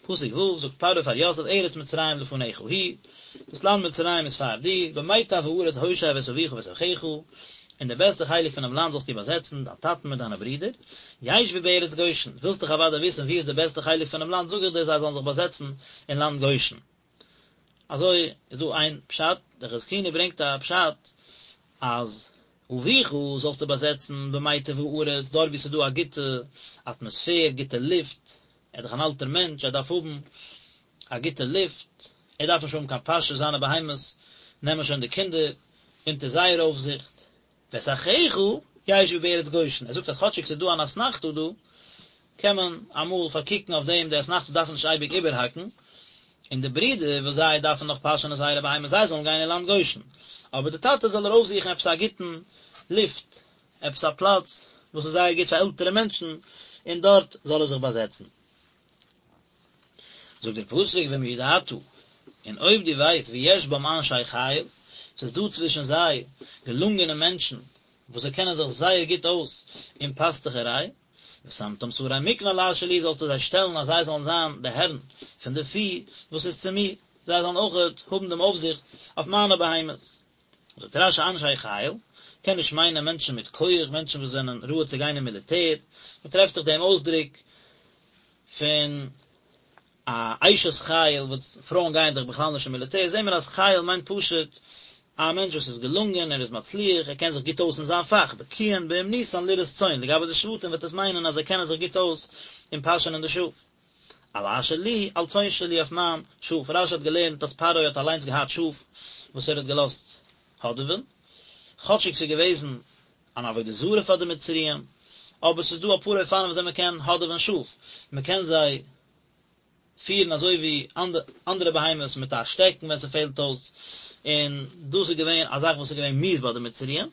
פסוק ו', זאגט פרעה פאר יוסף ארץ מצרים לפניך היא, דאס לאנד מצרים איז פאר דיר, במיטב הארץ הושב את אביך ואת אחיך, אין די בעסטע חלק פונעם לאנד זאלסטו באזעצן דיין טאטן מיט דיינע ברידער, ישבו בארץ גושן, ווילסט דאך אוודאי וויסן וואו איז די בעסטע חלק פונעם לאנד, זאג איך דיר זיי זאלן זיך באזעצן אין לאנד גושן. אזוי איז דא איין פשט, דער חזקוני ברענגט א פשט אז אביך זאלסטו באזעצן במיטב הארץ, דארט וואו ס'איז דא א גוטע אטמאספער, גוטע לופט, ער איז דאך אן אלטער מענטש, ער דארף האבן א גוטע לופט, ער דארף נישט האבן קיין פאשע, זיינע בהמות נעמען שוין די קינדער אונטער זייער אויפזיכט. ואת אחיך ישבו בארץ גושן, ער זאגט אז כאטשיג ס'איז דא אן אתנחתא דא, קען מען אמאל פארקוקן אויף דעם, די אתנחתא דארף מען נישט אייביג איבערהאקן, און די ברידער וואס זיי דארפן נאך פאשענען זייערע בהמות זיי זאלן גיין אין לאנד גושן, אבער די טאטע זאל ער אויפזוכן עפעס א גוטן לופט, עפעס א פלאץ וואס איז זייער גוט פאר עלטערע מענטשן, און דארט זאל ער זיך באזעצן. זאגט דער פסוק ואם ידעת, און אויב דו ווייסט ויש בם אנשי חיל, ס'איז דא צווישן זיי געלונגענע מענטשן וואס זיי קענען זיך זייער גוט אויס אין פאסטוכעריי, ושמתם שרי מקנה על אשר לי זאלסטו זיי שטעלן אז זיי זאלן זיין די הערן פון די פי וואס איז צו מיר, זיי זאלן אויכעט האבן דעם אויפזיכט אויף מיינע בהמות. זאגט רש"י אנשי חיל, קען נישט מיינען מענטשן מיט כח, מענטשן וואס זענען ראוי צו גיין אין מיליטער, מען טרעפט זיך דעם אויסדרוק פון א אשת חיל וואס פרויען גייען דאך בכלל נישט אין מיליטער, זעהן מיר אז חיל מיינט פשוט א מענטש וואס איז געלונגען, ער איז מצליח, ער קען זיך גוט אויס אין זיין פאך, בקיאין באומנותן לרעות צאן, לגבי די שבטים וועט עס מיינען אז זיי קענען זיך גוט אויס אין פאשענען די שאף. על אשר לי, על צאן שלי אויף מיין שאף, רש"י האט געלערנט אז פרעה האט אליינס געהאט שאף וואס ער האט געלאזט האדעווען, כאטשיג ס'איז געוועזן אן עבודה זרה פאר די מצריים, אבער ס'איז דא אפאר אופנים וויאזוי מ'קען האדעווען שאף, מ'קען זיי פירן אזוי ווי אנדערע בהמות מיט א שטעקן ווען ס'פעלט אויס, און דאס איז געווען א זאך וואס איז געווען מיאוס ביי די מצריים,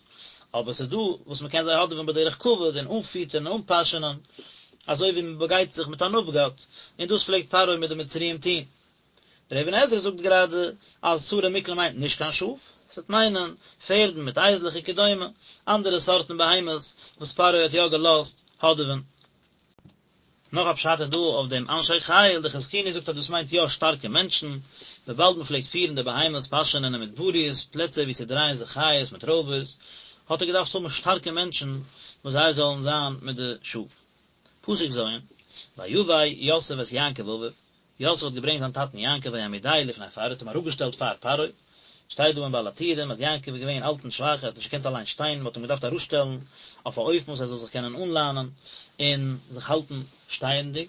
אבער ס'איז דא וואס מ'קען זיי האדעווען בדרך כבוד און אנפיטערן און אנפאשענען, אזוי ווי מ'באגייט זיך מיט אן אפגאט, און דאס פלעגט פרעה מיט די מצריים טון. דער אבן עזרא זאגט גראדע אז שרי מקנה מיינט נישט קיין שאף, ס'וועט מיינען פערדן מיט אייזלעך וכדומה, אנדערע סארטן בהמות וואס פרעה האט יא געלאזט האדעווען. נאך א פשט איז דא אויף דעם אנשי חיל, די חזקוני זאגט אז דאס מיינט יא שטארקע מענטשן, וויבאלד מען פלעגט פירן די בהמות פאשענען אין מדבריות, פלעצער וואו ס'דרייען זיך חיות מיט רויבערס, האט ער געדארפט האבן שטארקע מענטשן וואס זיי זאלן זיין מיט די שאף. פסוק ז', ויבא יוסף את יעקב אביו, יוסף האט געברענגט זיין טאטן יעקב ויעמידהו לפני פרעה, האט אים אראפגעשטעלט פאר פרעה, שטייט דא אין בעל הטורים אז יעקב איז געווען אלט און שוואך, ער האט נישט געקענט אליין שטיין, מען האט אים געדארפט אראפשטעלן אויף א אופן וואס ער זאל זיך קענען אנלאנען און זיך האלטן שטייענדיג,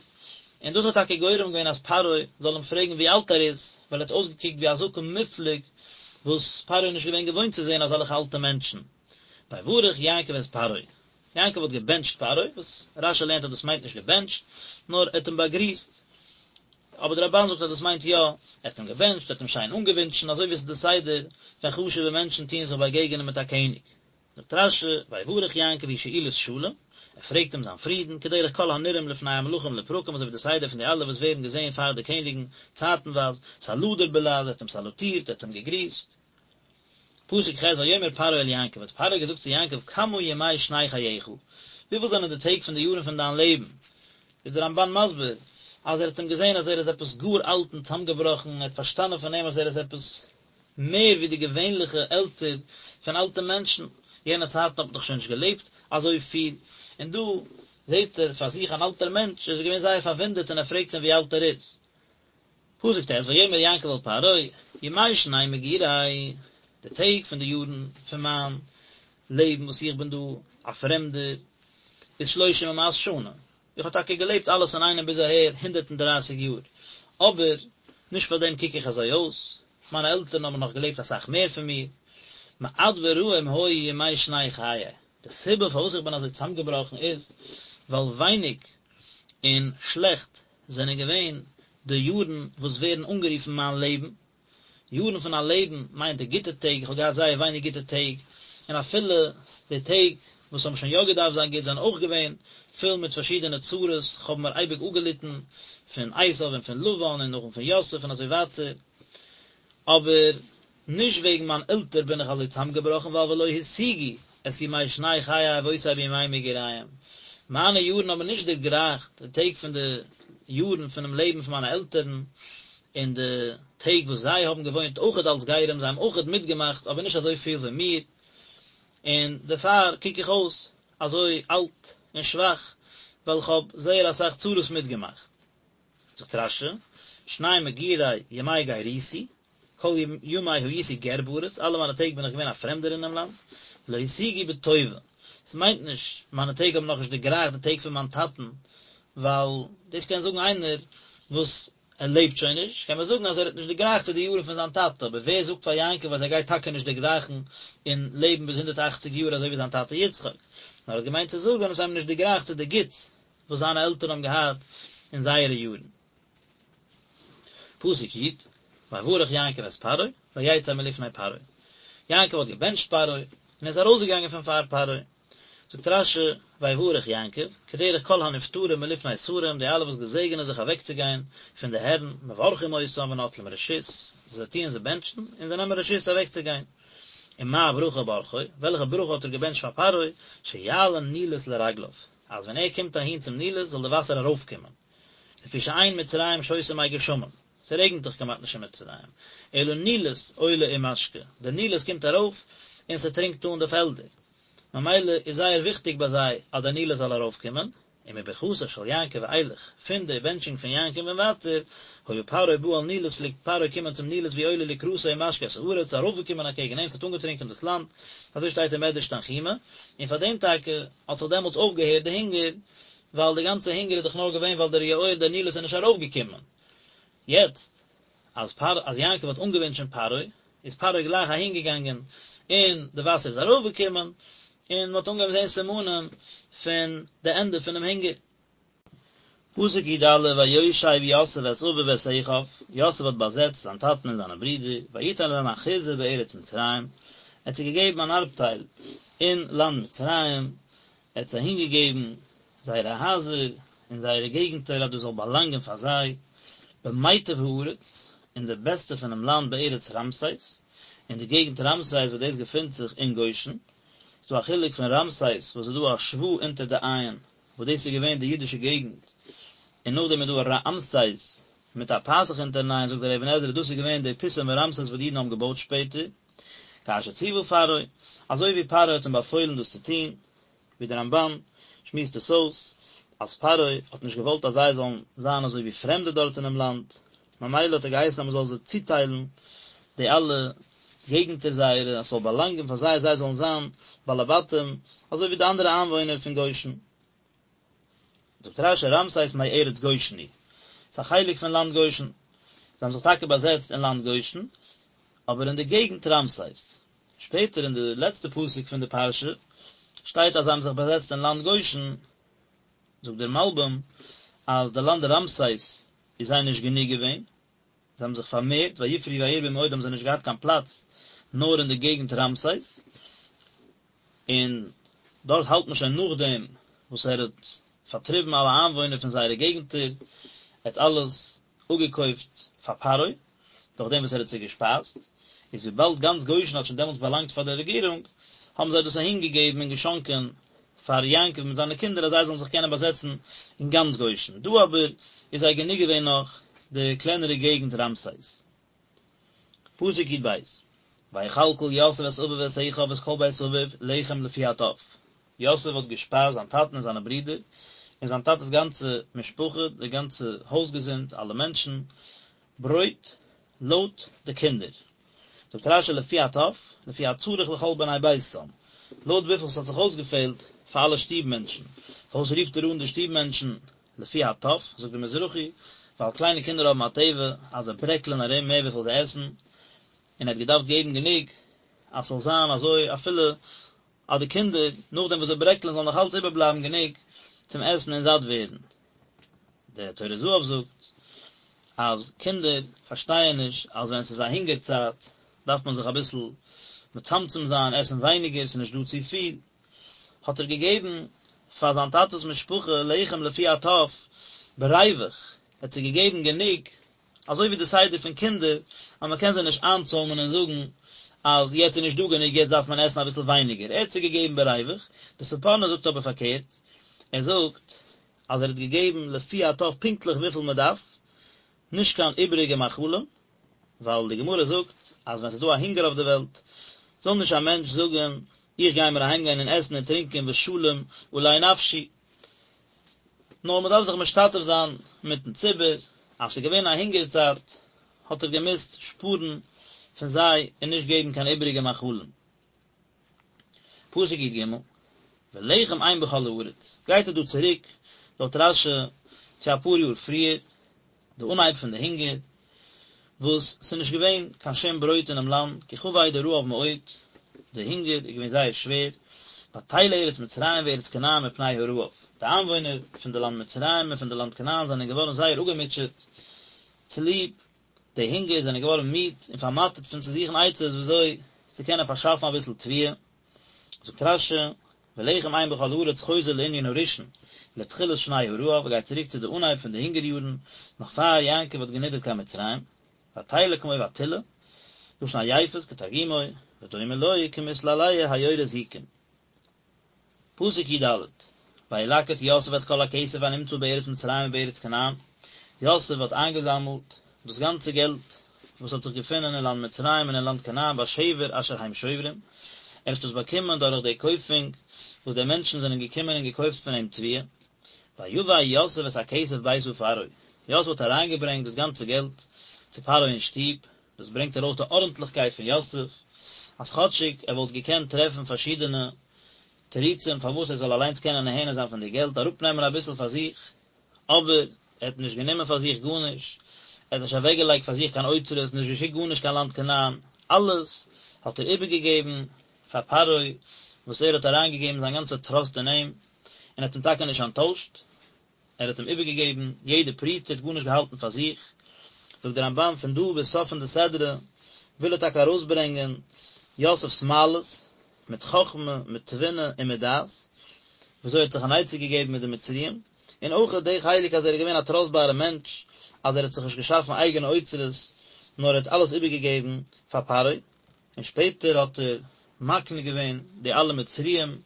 און דאס האט טאקע גורם געווען אז פרעה זאל אים פרעגן ווי אלט ער איז, ווייל ער האט אויסגעקוקט ווי א זקן מופלג, וואס פרעה איז נישט געווען געוואוינט צו זען אזעלכע אלטע מענטשן. ויברך יעקב את פרעה, יעקב האט געבענטשט פרעה, וואס רשי לערנט אז דאס מיינט נישט געבענטשט, נאר ער האט אים באגריסט, אבער דער רמבן זאגט אז דאס מיינט יא, ער האט אים געבענטשט, ער האט אים שיין אנגעווינטשן, אזוי ווי עס איז די סדר ווען חשוב'ע מענטשן טוען זיך באגעגענען מיט א קעניג. זאגט רשי, ויברך יעקב היא שאילת שלום, ער פרעגט אים זיין פרידן, כדרך כל הנראים לפני המלכים לפרקים, אזוי ווי די סדר פון די אלע וואס ווערן געזען פאר די קעניגן צייטנווייז, סלדור בלעז, ער האט אים סאלוטירט, ער האט אים געגריסט. פסוק ח' ויאמר פרעה אל יעקב האט פרעה געזאגט צו יעקב כמה ימי שני חייך, וויפיל זענען די טעג פון די יארן פון דיין לעבן? איז דער רמבן מסביר אז ער האט אים געזען אז ער איז עפעס גאר אלט און צאמגעבראכן, ער האט פארשטאנען פון אים אז ער איז עפעס מער ווי די געווענליכע עלטער פון אלטע מענטשן, יענע צייטן האט מען דאך שוין נישט געלעבט אזוי פיל, און דא זעט ער פאר זיך אן אלטער מענטש, איז ער געווען זייער פארוואונדערט און ער פרעגט אים ווי אלט ער איז. פסוק ט' ויאמר יעקב אל פרעה, ימי שני מגורי, די טעג פון די יארן פון מיין לעבן וואס איך בין דא א פרעמדער, איז שלושים ומאת שנה, איך האב טאקע געלעבט אלעס אינאיינעם ביז אהער הונדערט און דרייסיג יאר, אבער נישט פאר דעם קוק איך אזוי אויס, מיינע עלטערן האבן נאך געלעבט אסאך מער פון מיר, מעט ורעים היו ימי שני חיי, די סיבה פארוואס איך בין אזוי צאמגעבראכן איז, ווייל ווייניג און שלעכט זענען געווען די יארן וואס ווערן אנגערופן מיין לעבן. יארן פון א לעבן מיינט די גוטע טעג, איך האב געהאט זייער ווייניג גוטע טעג, און אפילו די טעג וואס האבן שוין יא געדארפט זיין גוט זענען אויך געווען פול מיט פארשידענע צרות, איך האב מיר אייביג אפגעליטן פון עשיו און פון לבן און נאכדעם פון יוסף און אזוי ווייטער, אבער נישט וועגן מיין עלטער בין איך אזוי צאמגעבראכן ווייל ולא השיגו את ימי שני חיי אבותי בימי מגוריהם, מיינע יארן האבן נישט דערגרייכט די טעג פון די יארן פונעם לעבן פון מיינע עלטערן, און די טעג וואס זיי האבן געוואוינט אויכעט אלס גרים, זיי האבן אויכעט מיטגעמאכט אבער נישט אזוי פיל ווי מיר, און דערפאר קוק איך אויס אזוי אלט און שוואך, ווייל איך האב זייער אסאך צרות מיטגעמאכט. זאגט רש"י, שני מגורי ימי גרותי, כל ימי הייתי גר בארץ, אלע מיינע טעג בין איך געווען א פרעמדער אינעם לאנד, ולא השיגו בטובה, ס'מיינט נישט מיינע טעג האבן נאכנישט דערגרייכט די טעג פון מיין טאטן, ווייל דאס קען זאגן איינער וואס ער לעבט שוין נישט, קען מען זאגן אז ער האט נישט דערגרייכט צו די יארן פון זיין טאטע, אבער ווער זאגט פאר יעקב אז ער גייט טאקע נישט דערגרייכן און לעבן ביז הונדערט אכציג יאר אזוי ווי זיין טאטע יצחק, נאר ער האט געמיינט צו זאגן אז זיי האבן נישט דערגרייכט צו די גוטס וואס זיינע עלטערן האבן געהאט אין זייערע יארן. פסוק י', ויברך יעקב את פרעה, ויצא מלפני פרעה. יעקב האט געבענטשט פרעה, און ער איז ארויסגעגאנגען פון פאר פרעה. זאגט רש"י, ויברך יעקב, כדרך כל הנפטרים מלפני שרים, די אלע וואס געזעגענען זיך אוועקצוגיין פון די הערן, מברכים אותם ונוטלים רשות, זיי טוען זיי בענטשן, און זיי נעמען רשות אוועקצוגיין. ומה ברכה ברכו, וועלכע ברכה האט ער געבענטשט פאר פרעה, שיעלה נילוס לרגליו. אז ווען ער קומט אהין צום נילוס זאל די וואסער ארויפקומען, לפי שאין מצרים שותה מי גשמים, ס'רעגנט דאך כמעט נישט אין מצרים, אלא נילוס עולה ומשקה, די נילוס קומט ארויף און ס'טרינקט אן די פעלדער, ממילא איז זייער וויכטיג ביי זיי אז די נילוס זאל ארויפקומען, ומברכתו של יעקב ואילך, פון די בענטשונג פון יעקב און ווייטער, היה פרעה בא אל נילוס פלעגט פרעה קומען צום נילוס והוא עולה לקראתו ומשקה את הארץ, ארויפגעקומען אקעגן אים, ס'האט אנגעטרינקען דאס לאנד, אזוי שטייט אין מדרש תנחומא, און פאר דעם טאקע האט זיך דעמאלטס אויפגעהערט די הונגער, ווייל די גאנצע הונגער איז דאך נאר געווען ווייל דער יאור דער נילוס איז נישט ארויפגעקומען. יעצט אז פרעה אז יעקב האט אנגעווינטשען פרעה, איז פרעה גלייך אהינגעגאנגען און די וואסער איז ארויפגעקומען, און מען האט אנגעהויבן זען סימנים פון די ענדע פונעם הונגער. פסוק י"א ויושב יוסף את אביו ואת אחיו, יוסף האט באזעצט זיין טאטן און זיינע ברידער, ויתן להם אחוזה בארץ מצרים, ער האט זיי געגעבן אן ארבטייל אין לאנד מצרים, ער האט זיי אהינגעגעבן זייערע הייזער און זייערע געגנטער אז דאס זאל באלאנגען פאר זיי, במיטב הארץ, אין די בעסטע פונעם לאנד בארץ רעמסס, אין די געגנט רעמסס וואס דאס געפינט זיך אין גושן, ס'איז דא א חילוק פון רעמסס וואס איז דא א שווא אונטער די עין, וואס דאס איז געווען די אידישע געגנט. און נאכדעם איז דא רעמסס מיט א פתח אונטערן עין, זאגט דער אבן עזרא דאס איז געווען די פיתום ורעמסס וואס די אידן האבן געבויט שפעטער, כאשר ציוה פרעה, אזוי ווי פרעה האט אים באפוילן דאס צו טון, ווי דער רמב"ן שמועסט עס אויס, אז פרעה האט נישט געוואלט אז זיי זאלן זיין אזוי ווי פרעמדע דארט אינעם לאנד, ממילא האט ער געהייסן אז מען זאל זיי צוטיילן די אלע געגנטער זייערע, אז ס'זאל באלאנגען פאר זיי, זיי זאלן זיין בעלי בתים, אזוי ווי די אנדערע איינוואוינער פון גושן. זאגט רש"י רעמסס מארץ גושן היא, ס'איז א חלק פון לאנד גושן, זיי האבן זיך טאקע באזעצט אין לאנד גושן, אבער אין די געגנט רעמסס. שפעטער אין די לעצטע פסוק פון די פרשה שטייט אז זיי האבן זיך באזעצט אין לאנד גושן, זאגט דער מלבי"ם אז די לאנד רעמסס איז זיי נישט גענוג געווען, זיי האבן זיך פארמערט, ויפרו וירבו מאוד האבן זיי נישט געהאט קיין פלאץ נאר אין די געגנט רעמסס, און דארט האלט מען שוין נאכדעם וואס ער האט פארטריבן אלע איינוואוינער פון זייערע געגנטער, ער האט אלעס אפגעקויפט פאר פרעה, דורך דעם וואס ער האט זיי געשפייזט, איז וויבאלד גאנץ גושן האט שוין דעמאלטס באלאנגט פאר דער רעגירונג, האבן זיי דאס אהין געגעבן און געשאנקען פאר יעקב מיט זיינע קינדער אז זיי זאלן זיך קענען באזעצן אין גאנץ גושן. דא אבער איז זיי גענוג געווען נאך די קלענערע געגנט רעמסס. פסוק י"ב, ויכלכל יוסף את אביו ואת אחיו ואת כל בית אביו לחם לפי הטף, יוסף האט געשפייזט זיין טאטן און זיינע ברידער, און זיין טאטע'ס גאנצע משפחה, די גאנצע הויזגעזינד, אלע מענטשן, ברויט לויט די קינדער. זאגט רש"י לפי הטף, לפי הצריך לכל בני ביתם, לויט וויפיל ס'האט זיך אויסגעפעלט פאר אלע שטוב מענטשן. פארוואס רופט ער אן די שטוב מענטשן לפי הטף, זאגט דער מזרחי, ווייל קליינע קינדער האבן א טבע אז זיי ברעקלען ארום מער וויפיל זיי עסן, און ער האט געדארפט געבן גענוג אז ס'זאל זיין אזוי אפילו אז די קינדער נאכדעם וואס זיי ברעקלען זאל נאך אלץ איבערבלייבן גענוג צום עסן און זאט ווערן. דער טורי זהב זאגט אז קינדער פארשטייען נישט אז ווען ס'איז א הונגער צייט דארף מען זיך אביסל מצמצם זיין, עסן ווייניגער, ס'איז נישט דא צופיל, האט ער געגעבן פאר זיין טאטע'ס משפחה לחם לפי הטף בריווח, ער האט זיי געגעבן גענוג אזוי ווי די סדר פון קינדער אז מען קען זיי נישט איינצוימען און זאגן אז יעצט איז נישט דא גענוג יעצט דארף מען עסן אביסל ווייניגער, ער האט זיי געגעבן בריווח, די ספורנו זאגט אבער פארקערט, ער זאגט אז ער האט געגעבן לפי הטף פונקטליך וויפיל מען דארף, נישט קיין איבעריגע מאכלים, ווייל די גמרא זאגט אז ווען ס'איז דא א הונגער אויף די וועלט זאל נישט א מענטש זאגן איך גיי מיר אהיימגיין און עסן און טרינקען ושלום עלי נפשי, נאר מען דארף זיך משתתף זיין מיטן ציבור, אז ס'איז געווען א הונגער צייט האט ער געמוזט שפארן פון זיי און נישט געבן קיין איבעריגע מאכלים. פסוק י"ג, ולחם אין בכל הארץ, גייט ער דא צוריק לויט רש"י צו אפאר יאר פריער, די אנהייב פון די הונגער, וואס ס'איז נישט געווען קיין שום ברויט אינעם לאנד, כי כבד הרעב מאוד, די הונגער איז געווען זייער שווער, ותלה ארץ מצרים וארץ כנען מפני הרעב, די איינוואוינער פון די לאנד מצרים און פון די לאנד כנען זענען געווארן זייער אפגעמוטשעט צוליב די הונגער, זענען געווארן מיד און פארמאטערט פון צו זוכן עצות וויאזוי צו קענען פארשאפן אביסל תבואה. זאגט רש"י, ולחם אין בכל הארץ חוזר לענין הראשון, לתחילת שני הרעב, גייט צוריק צו די אנהייב פון די הונגער יארן, נאך פאר יעקב האט גענידערט קיין מצרים, ותלה כמו ותלאה, לשון עייפות כתרגומו, ודומה לו כמתלהלה היורה זיקים. פסוק י"ד, וילקט יוסף את כל הכסף הנמצא בארץ מצרים ובארץ כנען, יוסף האט איינגעזאמלט דאס גאנצע געלט וואס האט זיך געפונען אין לאנד מצרים און אין לאנד כנען בשבר אשר הם שוברים, ער האט דאס באקומען דורך די קויפונג וואס די מענטשן זענען געקומען און געקויפט פון אים תבואה. ויבא יוסף את הכסף ביתה פרעה, יוסף האט אריינגעברענגט דאס גאנצע געלט צו פרעה אין שטוב, דאס ברענגט ארויס די ארנטליכקייט פון יוסף, אז כאטשיג ער וואלט געקענט טרעפן פארשידענע תירוצים פארוואס ער זאל אליינס קענען נהנה זיין פון די געלט, אראפנעמען אביסל פאר זיך, אבער ער האט נישט גענומען פאר זיך גארנישט, ער האט נישט אוועקגעלייגט פאר זיך קיין אוצרות, נישט געשיקט גארנישט קיין לאנד כנען, אלעס האט ער איבערגעגעבן פאר פרעה, וואס ער האט אריינגעגעבן זיין גאנצע טראסט אין אים, און ער האט אים טאקע נישט אנטוישט, ער האט אים איבערגעגעבן יעדע פרוטה, ער האט גארנישט געהאלטן פאר זיך. זאגט דער רמב"ן פון דא ביז סוף פון די סדרה וויל ער טאקע ארויסברענגען יוסף'ס מעלות, מיט חכמה, מיט תבונה און מיט דעת, וויאזוי ער האט זיך אן עצה געגעבן מיט די מצריים, און אויך די חלק אז ער איז געווען א טראסטבארע מענטש, אז ער האט זיך נישט געשאפן אייגענע אוצרות, נאר ער האט אלעס איבערגעגעבן פאר פרעה, און שפעטער האט ער מקנה געווען די אלע מצריים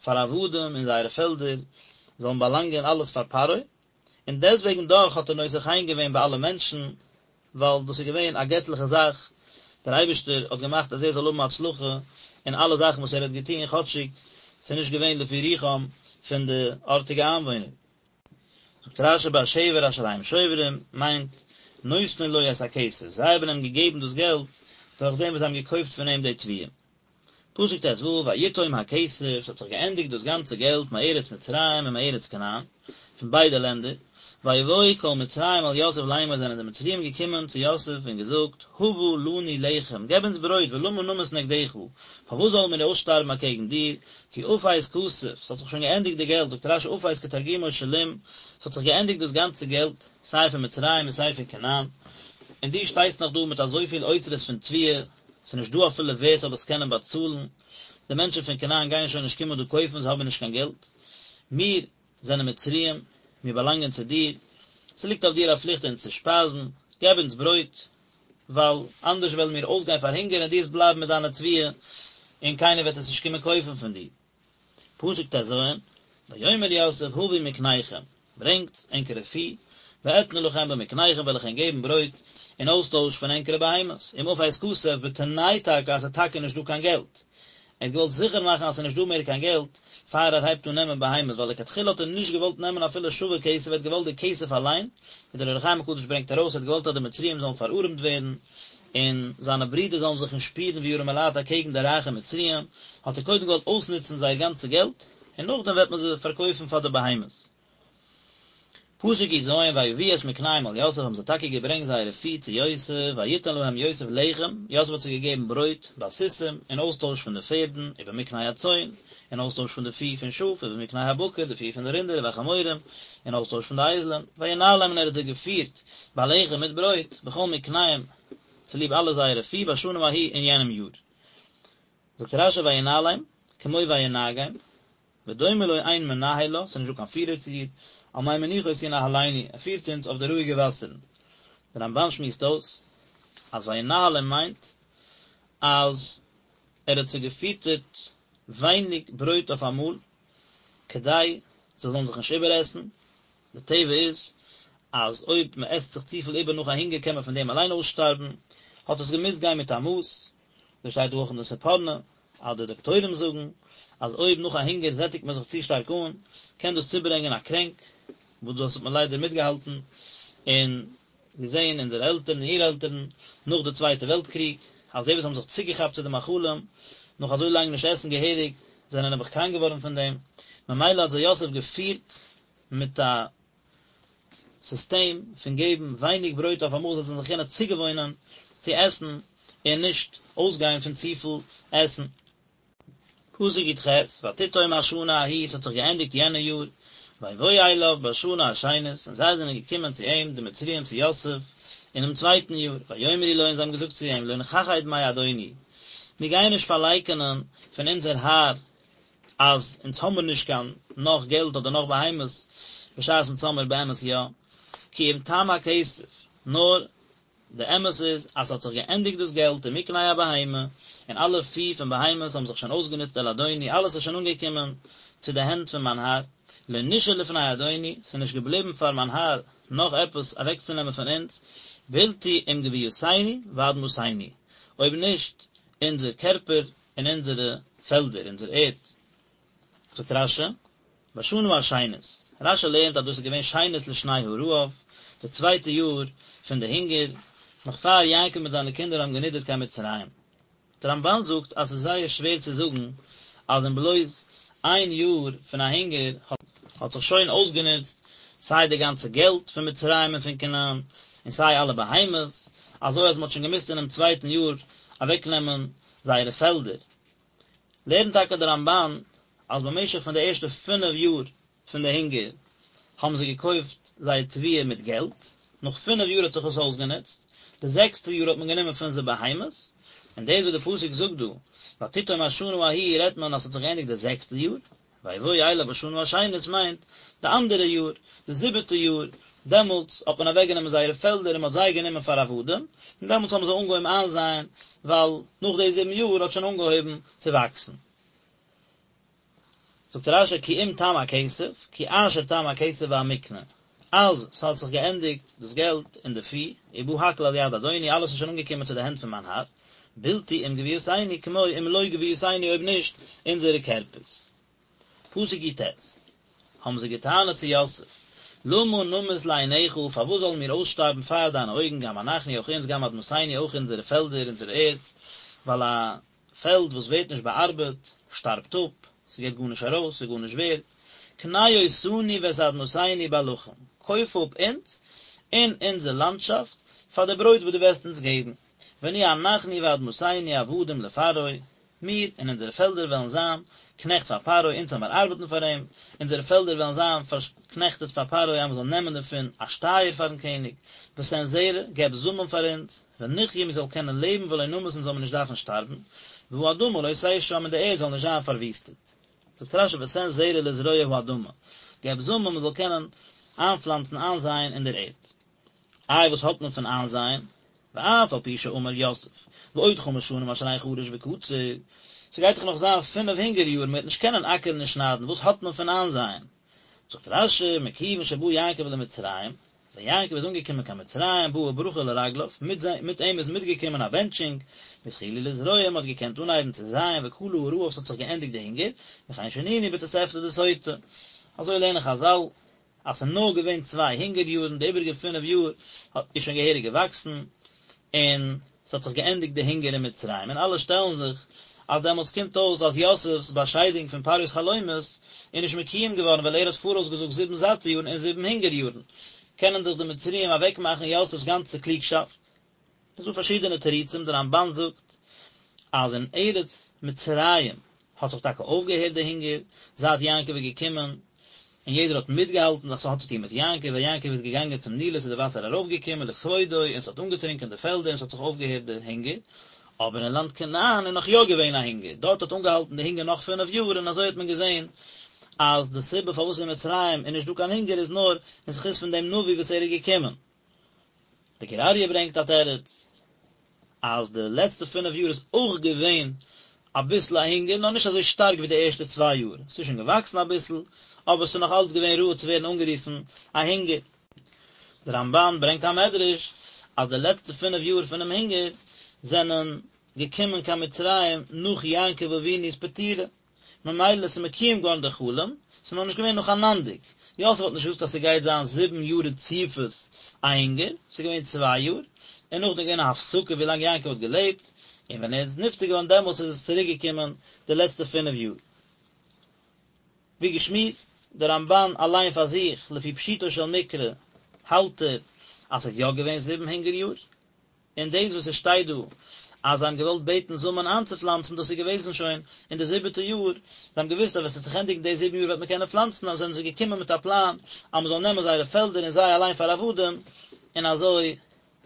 פאר עבדים אין זייערע פעלדער, זאלן באלאנגען אלעס פאר פרעה. און דעסטוועגן דאך האט ער נושא חן געווען ביי אלע מענטשן, ווייל דאס איז געווען א געטליכע זאך, דער אייבערשטער האט געמאכט אז ער זאל האבן הצלחה אין אלע זאכן וואס ער האט געטון, כאטשיג ס'איז נישט געווען לפי רוחם פון די ארטיגע איינוואוינער. זאגט רש"י בשבר אשר הם שוברים, מיינט, נותנין לו את הכסף, זיי האבן אים געגעבן דאס געלט דורך דעם וואס זיי האבן געקויפט פון אים די תבואה. פסוק ט"ו, ויתום הכסף, ס'האט זיך געענדיגט דאס גאנצע געלט מארץ מצרים ומארץ כנען, פון ביידע לענדער, ויבואו כל מצרים אל יוסף לאמר זענען די מצריים געקומען צו יוסף און געזאגט, הבה לנו לחם, געב אונז ברויט ולמה נמות נגדך, פארוואס זאלן מיר אויסשטארבן אקעגן דיר, כי אפס כסף, ס'האט זיך שוין געענדיגט די געלט, זאגט רש"י אפס כתרגומו שלים, ס'האט זיך געענדיגט דאס גאנצע געלט, סיי פון מצרים און סיי פון כנען, און דו שטייסט נאך דא מיט אזויפיל אוצרות פון תבואה, ס'איז נישט דא אפילו ווער ס'זאל עס קענען באצאלן, די מענטשן פון כנען גייען שוין נישט קומען דא קויפן, זיי האבן נישט קיין געלט, מיר זענען מצריים, מיר באלאנגען צו דיר, ס'ליגט אויף דיר א פליכט אונז צו שפייזן, געב אונז ברויט, ווייל אנדערש וועלן מיר אויסגיין פאר הונגער און דו וועסט בלייבן מיט דיינע תבואה, און קיינער וועט עס נישט קומען קויפן פון דיר. פסוק ט"ז, ויאמר יוסף הבו מקניכם, ברענגטס ענקערע פי, ואתנה לכם במקניכם וועל איך ענק געבן ברויט אין אויסטויש פון ענקערע בהמות, אם אפס כסף בתנאי טאקע אז ס'איז טאקע נישט דא קיין געלט. ער האט געוואלט זיכער מאכן אז ס'איז נישט דא מער קיין געלט פאר ער הייבט אן נעמען בהמות, ווייל לכתחילה האט ער נישט געוואלט נעמען אפילו שווה כסף, ער האט געוואלט די כסף אליין, ווי דער אור החיים הקדוש ברענגט ארויס, ער האט געוואלט אז די מצריים זאלן פארארעמט ווערן, און זיינע ברידער זאלן זיך נישט שפירן ווי ארעמעלייט אקעגן די רייכע מצריים, האט ער קודם געוואלט אויסנוצן זייער גאנצע געלט, און נאכדעם וועט מען זיי פארקויפן פאר די בהמות. פסוק י"ז, ויביאו את מקניהם אל יוסף האבן זיי טאקע געברענגט זייערע פי צו יוסף, ויתן להם יוסף לחם, יוסף האט זיי געגעבן ברויט, בסוסים, אין אויסטויש פון די פערדן, ובמקנה הצאן, אין אויסטויש פון די פי פון שאף, ובמקנה הבקר, די פי פון די רינדער, ובחמורים, אין אויסטויש פון די אייזלען, וינהלם און ער האט זיי געפירט, בלחם מיט ברויט, בכל מקניהם, צוליב אלע זייערע פי, בשנה ההיא, אין יענעם יאר. זאגט רש"י וינהלם, כמו וינהגם, ודומה לו אין מנהל לה, ס'איז נישט דא קיין פירער צו איר, על מי מנוחות ינהלנו, ער פירט אונז אויף די רואיגע וואסערן. דער רמב"ן שמועסט אויס אז וינהלם מיינט אז ער האט זיי געפיטערט ווייניג ברויט אויף אמאל, כדי זיי זאלן זיך נישט איבערעסן, די טבע איז אז אויב מען עסט זיך צופיל איבער נאך א הונגער קען מען פון דעם אליין אויסשטארבן, האט עס געמוזט גיין מיט א מאס, דאס שטייט דא אויך אין די ספורנו, אז די דאקטוירים זאגן אז אויב נאך א הונגער זעטיגט מען זיך צו שטארק אן, קען דאס צוברענגען א קרענק, וואס דאס האט מען ליידער מיטגעהאלטן און געזען אונזערע עלטערן און אור-עלטערן נאך די צווייטע וועלט קריג, אז די וואס האבן זיך צוגעכאפט צו די מאכלים נאך אזוי לאנג נישט עסן געהעריג, זענען נעבעך קראנק געווארן פון דעם, ממילא האט זיי יוסף געפירט מיט א סיסטעם פון געבן ווייניג ברויט אויף אמאל זיי זאלן זיך קענען צוגעוואוינען צו עסן און נישט אויסגיין פון צופיל עסן. פסוק י"ח, ותתום השנה ההיא, ס'האט זיך געענדיגט יענע יאר, ויבואו אליו בשנה השנית, און זיי זענען געקומען צו אים, די מצריים צו יוסף, אינעם צווייטן יאר, ויאמרו לו, און זיי האבן געזאגט צו אים, לא נכחד מאדוני, מיר גייען נישט פארלייקענען פון אונזער האר אז אונז האמיר נישט קיין נאך געלט אדער נאך בהמות, בשעת אונז האמיר באמת יא, כי אם תם הכסף, נאר די אמת איז אז ס'האט זיך געענדיגט דאס געלט ומקנה הבהמה, און אלע פי פון בהמות האבן זיך שוין אויסגענוצט אל אדוני, אלעס איז שוין אנגעקומען צו די הענט פון מיין האר, לא נשאר לפני אדוני, ס'איז נישט געבליבן פאר מיין האר נאך עפעס אוועקצונעמען פון אונז, בלתי אם גויתנו ואדמתנו, אויב נישט אונזער קערפער און אונזערע פעלדער, אונזער ערד. זאגט רש"י, בשנה השנית, רש"י לערנט אז דאס איז געווען שנית לשני הרעב, די צווייטע יאר פון די הונגער, נאך פאר יעקב מיט זיינע קינדער האבן גענידערט קיין מצרים. דער רמב"ן זאגט אז ס'איז זייער שווער צו זאגן אז אין בלויז איין יאר פון א הונגער האט זיך שוין אויסגענוצט סיי די גאנצע געלט פון מצרים און פון כנען, און סיי אלע בהמות, אזוי אז מ'האט שוין געמוזט אינעם צווייטן יאר אוועקנעמען זייערע פעלדער. לערנט טאקע דער רמב"ן אז במשך פון די ערשטע פינף יאר פון די הונגער האבן זיי געקויפט זייער תבואה מיט געלט, נאך פינף יאר האט זיך עס אויסגענוצט, די זעקסטע יאר האט מען גענומען פון זיי בהמות, און דאס וואס די פסוק זאגט דא ותתום השנה ההיא רעדט מען אז ס'האט זיך געענדיגט די זעקסטע יאר, ויבואו אליו בשנה השנית מיינט די אנדערע יאר, די זיבעטע יאר, דעמאלטס האט מען אוועק גענומען זייערע פעלדער און מען האט זיי גענומען פאר עבדים, און דעמאלטס האבן זיי אנגעהויבן איינזייען, ווייל נאך די זיבן יאר האט שוין אנגעהויבן צו וואקסן. זאגט רש"י כי אם תם הכסף, כי אשר תם הכסף והמקנה. אז ס'האט זיך געענדיגט דאס געלט און די פי, ובא הכל אל יד אדוני, אלעס איז שוין אנגעקומען צו די הענט פון מיין האר, בלתי אם גויתנו כמו אם לא גויתנו אויב נישט אונזערע קערפערס. פסוק י"ט, האבן זיי געטענה'ט צו יוסף, למה נמות לעיניך, פארוואס זאלן מיר אויסשטארבן פאר דיינע אויגן, גם אנחנו אויך אונז, גם אדמתנו אויך אונזערע פעלדער, אונזער ערד, ווייל א פעלד וואס ווערט נישט באארבעט, שטארבט אפ, ס'געט גארנישט ארויס, ס'איז גארנישט ווערד. קנה אותנו ואת אדמתנו בלחם, קויף אפ אונז און אונזער לאנדשאפט פאר די ברויט וואס דו וועסט אונז געבן, ונהיה אנחנו ואדמתנו עבדים לפרעה, מיר און אונזערע פעלדער וועלן זיין קנעכט פאר פרעה, אונז זאל מיר ארבעטן פאר אים, אונזערע פעלדער וועלן זיין פארקנעכטעט פאר פרעה אז מען זאל נעמען דערפון א שטייער פארן קעניג, ותן זרע, געב זאמען פאר אונז, ונחיה מיר זאלן קענען לעבן ולא נמות אונז זאל מיר נישט דארפן שטארבן, והאדמה לא תשם און די ערד זאל נישט זיין פארוויסטעט. זאגט רש"י ותן זרע לזרוע האדמה, געב זאמען מען זאל קענען איינפלאנצן איינזייען אין דער ערד. איי וואס האט מען פון איינזייען? ואף על פי שאמר יוסף, ועוד חמש שנים אשר אין חריש וקציר, ס'גייט דאך נאך זיין פינף הונגער יארן, מ'וועט נישט קענען אקערן און שניידן, וואס האט מען פון איינזייען? זאגט רש"י, מכיוון שבא יעקב למצרים, ווען יעקב איז אנגעקומען קיין מצרים, באה ברכה לרגליו, מיט מיט אים איז מיטגעקומען א בענטשונג, והתחילו לזרוע, מ'האט געקענט אנהייבן צו זייען, וכלה הרעב, ס'האט זיך געענדיגט די הונגער, וכן שנינו בתוספתא דסוטה. אזוי לערנען חז"ל, אז ס'איז נאר געווען צוויי הונגער יארן, די איבעריגע פינף יאר איז שוין געהעריג געוואקסן, און ס'האט זיך געענדיגט די הונגער אין מצרים, און אלע שטעלן זיך אז דעמאלטס קומט אויס אז יוסף'ס באשיידונג פון פרעה'ס חלומות איז נישט מקוים געווארן ווייל ער האט פאראויס געזאגט זיבן זאטע יארן און זיבן הונגער יארן, קענען דאך די מצריים אוועקמאכן יוסף'ס גאנצע קלוגשאפט. ס'איז דא פארשידענע תירוצים, די רמב"ן זאגט אז אין ארץ מצרים האט זיך טאקע אויפגעהערט די הונגער זייט יעקב איז געקומען, און יעדער האט מיטגעהאלטן אז ס'האט צו טון מיט יעקב, ווען יעקב איז געגאנגען צום נילוס איז די וואסער ארויפגעקומען לכבודו און ס'האט אנגעטרונקען די פעלדער און ס'האט זיך אויפגעהערט די הונגער, אבער אין לאנד כנען איז נאך יא געווען א הונגער, דארט האט אנגעהאלטן די הונגער נאך פינף יאר און אזוי האט מען געזען אז די סיבה פארוואס אין מצרים איז נישט דא קיין הונגער איז נאר אין זכות פון דעם נביא וואס ער איז געקומען. די גור אריה ברענגט א תירוץ אז די לעצטע פינף יאר איז אויך געווען אביסל א הונגער נאר נישט אזוי שטארק ווי די ערשטע צוויי יאר, ס'איז שוין געוואקסן אביסל אבער ס'איז נאך אלץ געווען ראוי צו ווערן אנגערופן א הונגער. די רמב"ן ברענגט א מדרש אז די לעצטע פינף יאר פונעם הונגער זענען געקומען קיין מצרים נאך יעקב אבינו'ס פטירה, ממילא ס'איז מקוים געווארן די חלום, ס'איז נאר נישט געווען נאכאנאנדיג, יוסף האט נישט געזאגט אז ס'גייט זיין זיבן יאר רציפות א הונגער, ס'איז געווען צוויי יאר, און נאכדעם געווען א הפסקה ווי לאנג יעקב האט געלעבט, און ווען ער איז נפטר געווארן דעמאלטס איז עס צוריק געקומען די לעצטע פינף יאר. ווי געשמועסט, די רמב"ן אליין פאר זיך, לפי פשוטו של מקרא, האלט ער אז ס'איז יא געווען זיבן הונגער יאר, און דאס וואס עס שטייט דא אז זיי האבן געוואלט בעטן זאמען איינצופלאנצן דאס איז געוועזן שוין אין די זיבעטע יאר, זיי האבן געוואוסט אז ווען עס וועט זיך ענדיגן די זיבן יאר וועט מען קענען פלאנצן, אבער זענען זיי געקומען מיט א פלאן אז מען זאל נעמען זייערע פעלדער און זיי אליין פאר עבדים, און אזוי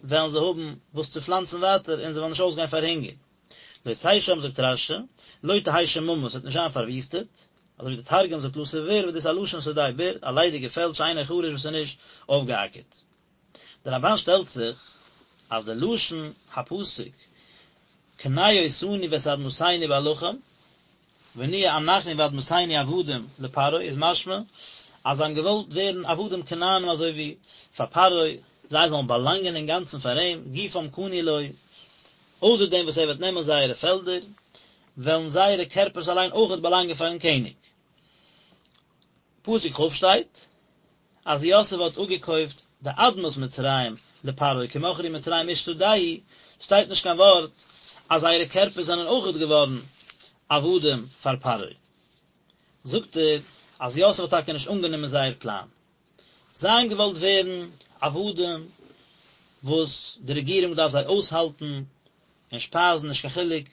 וועלן זיי האבן וואס צו פלאנצן ווייטער און זיי וועלן נישט אויסגיין פאר הונגער. לא תשם זאגט רש"י, לא תהא שממה, עס וועט נישט זיין פארוויסטעט, אזוי ווי די תרגום זאגט לתא ביר וואס דאס איז א לשון שדה בור, א ליידיגע פעלד שאינו חרוש וואס איז נישט אויפגעאקערט. דער רמב"ן שטעלט זיך אז די לשון הפסוק קנה אותנו ואת אדמתנו בלחם ונהיה אנחנו ואדמתנו עבדים לפרעה איז משמע אז זיי האבן געוואלט ווערן עבדים כנענים אזוי ווי פאר פרעה, זיי זאלן באלאנגען אינגאנצן פאר אים, גופם קנוי לו, אויסער דעם וואס ער וועט נעמען זייערע פעלדער, וועלן זייערע קערפערס אליין אויכעט באלאנגען פארן קעניג. פסוק כ' שטייט אז יוסף האט אפגעקויפט די אדמת מצרים לפרעה כי מכרו מצרים איש שדהו, שטייט נישט קיין ווארט אז זייערע קערפערס זענען אויכעט געווארן עבדים פאר פרעה. זאגט ער אז יוסף האט טאקע נישט אנגענומען זייער פלאן. זיי האבן געוואלט ווערן עבדים וואס די רעגירונג דארף זיי אויסהאלטן און שפייזן נישט קיין חילוק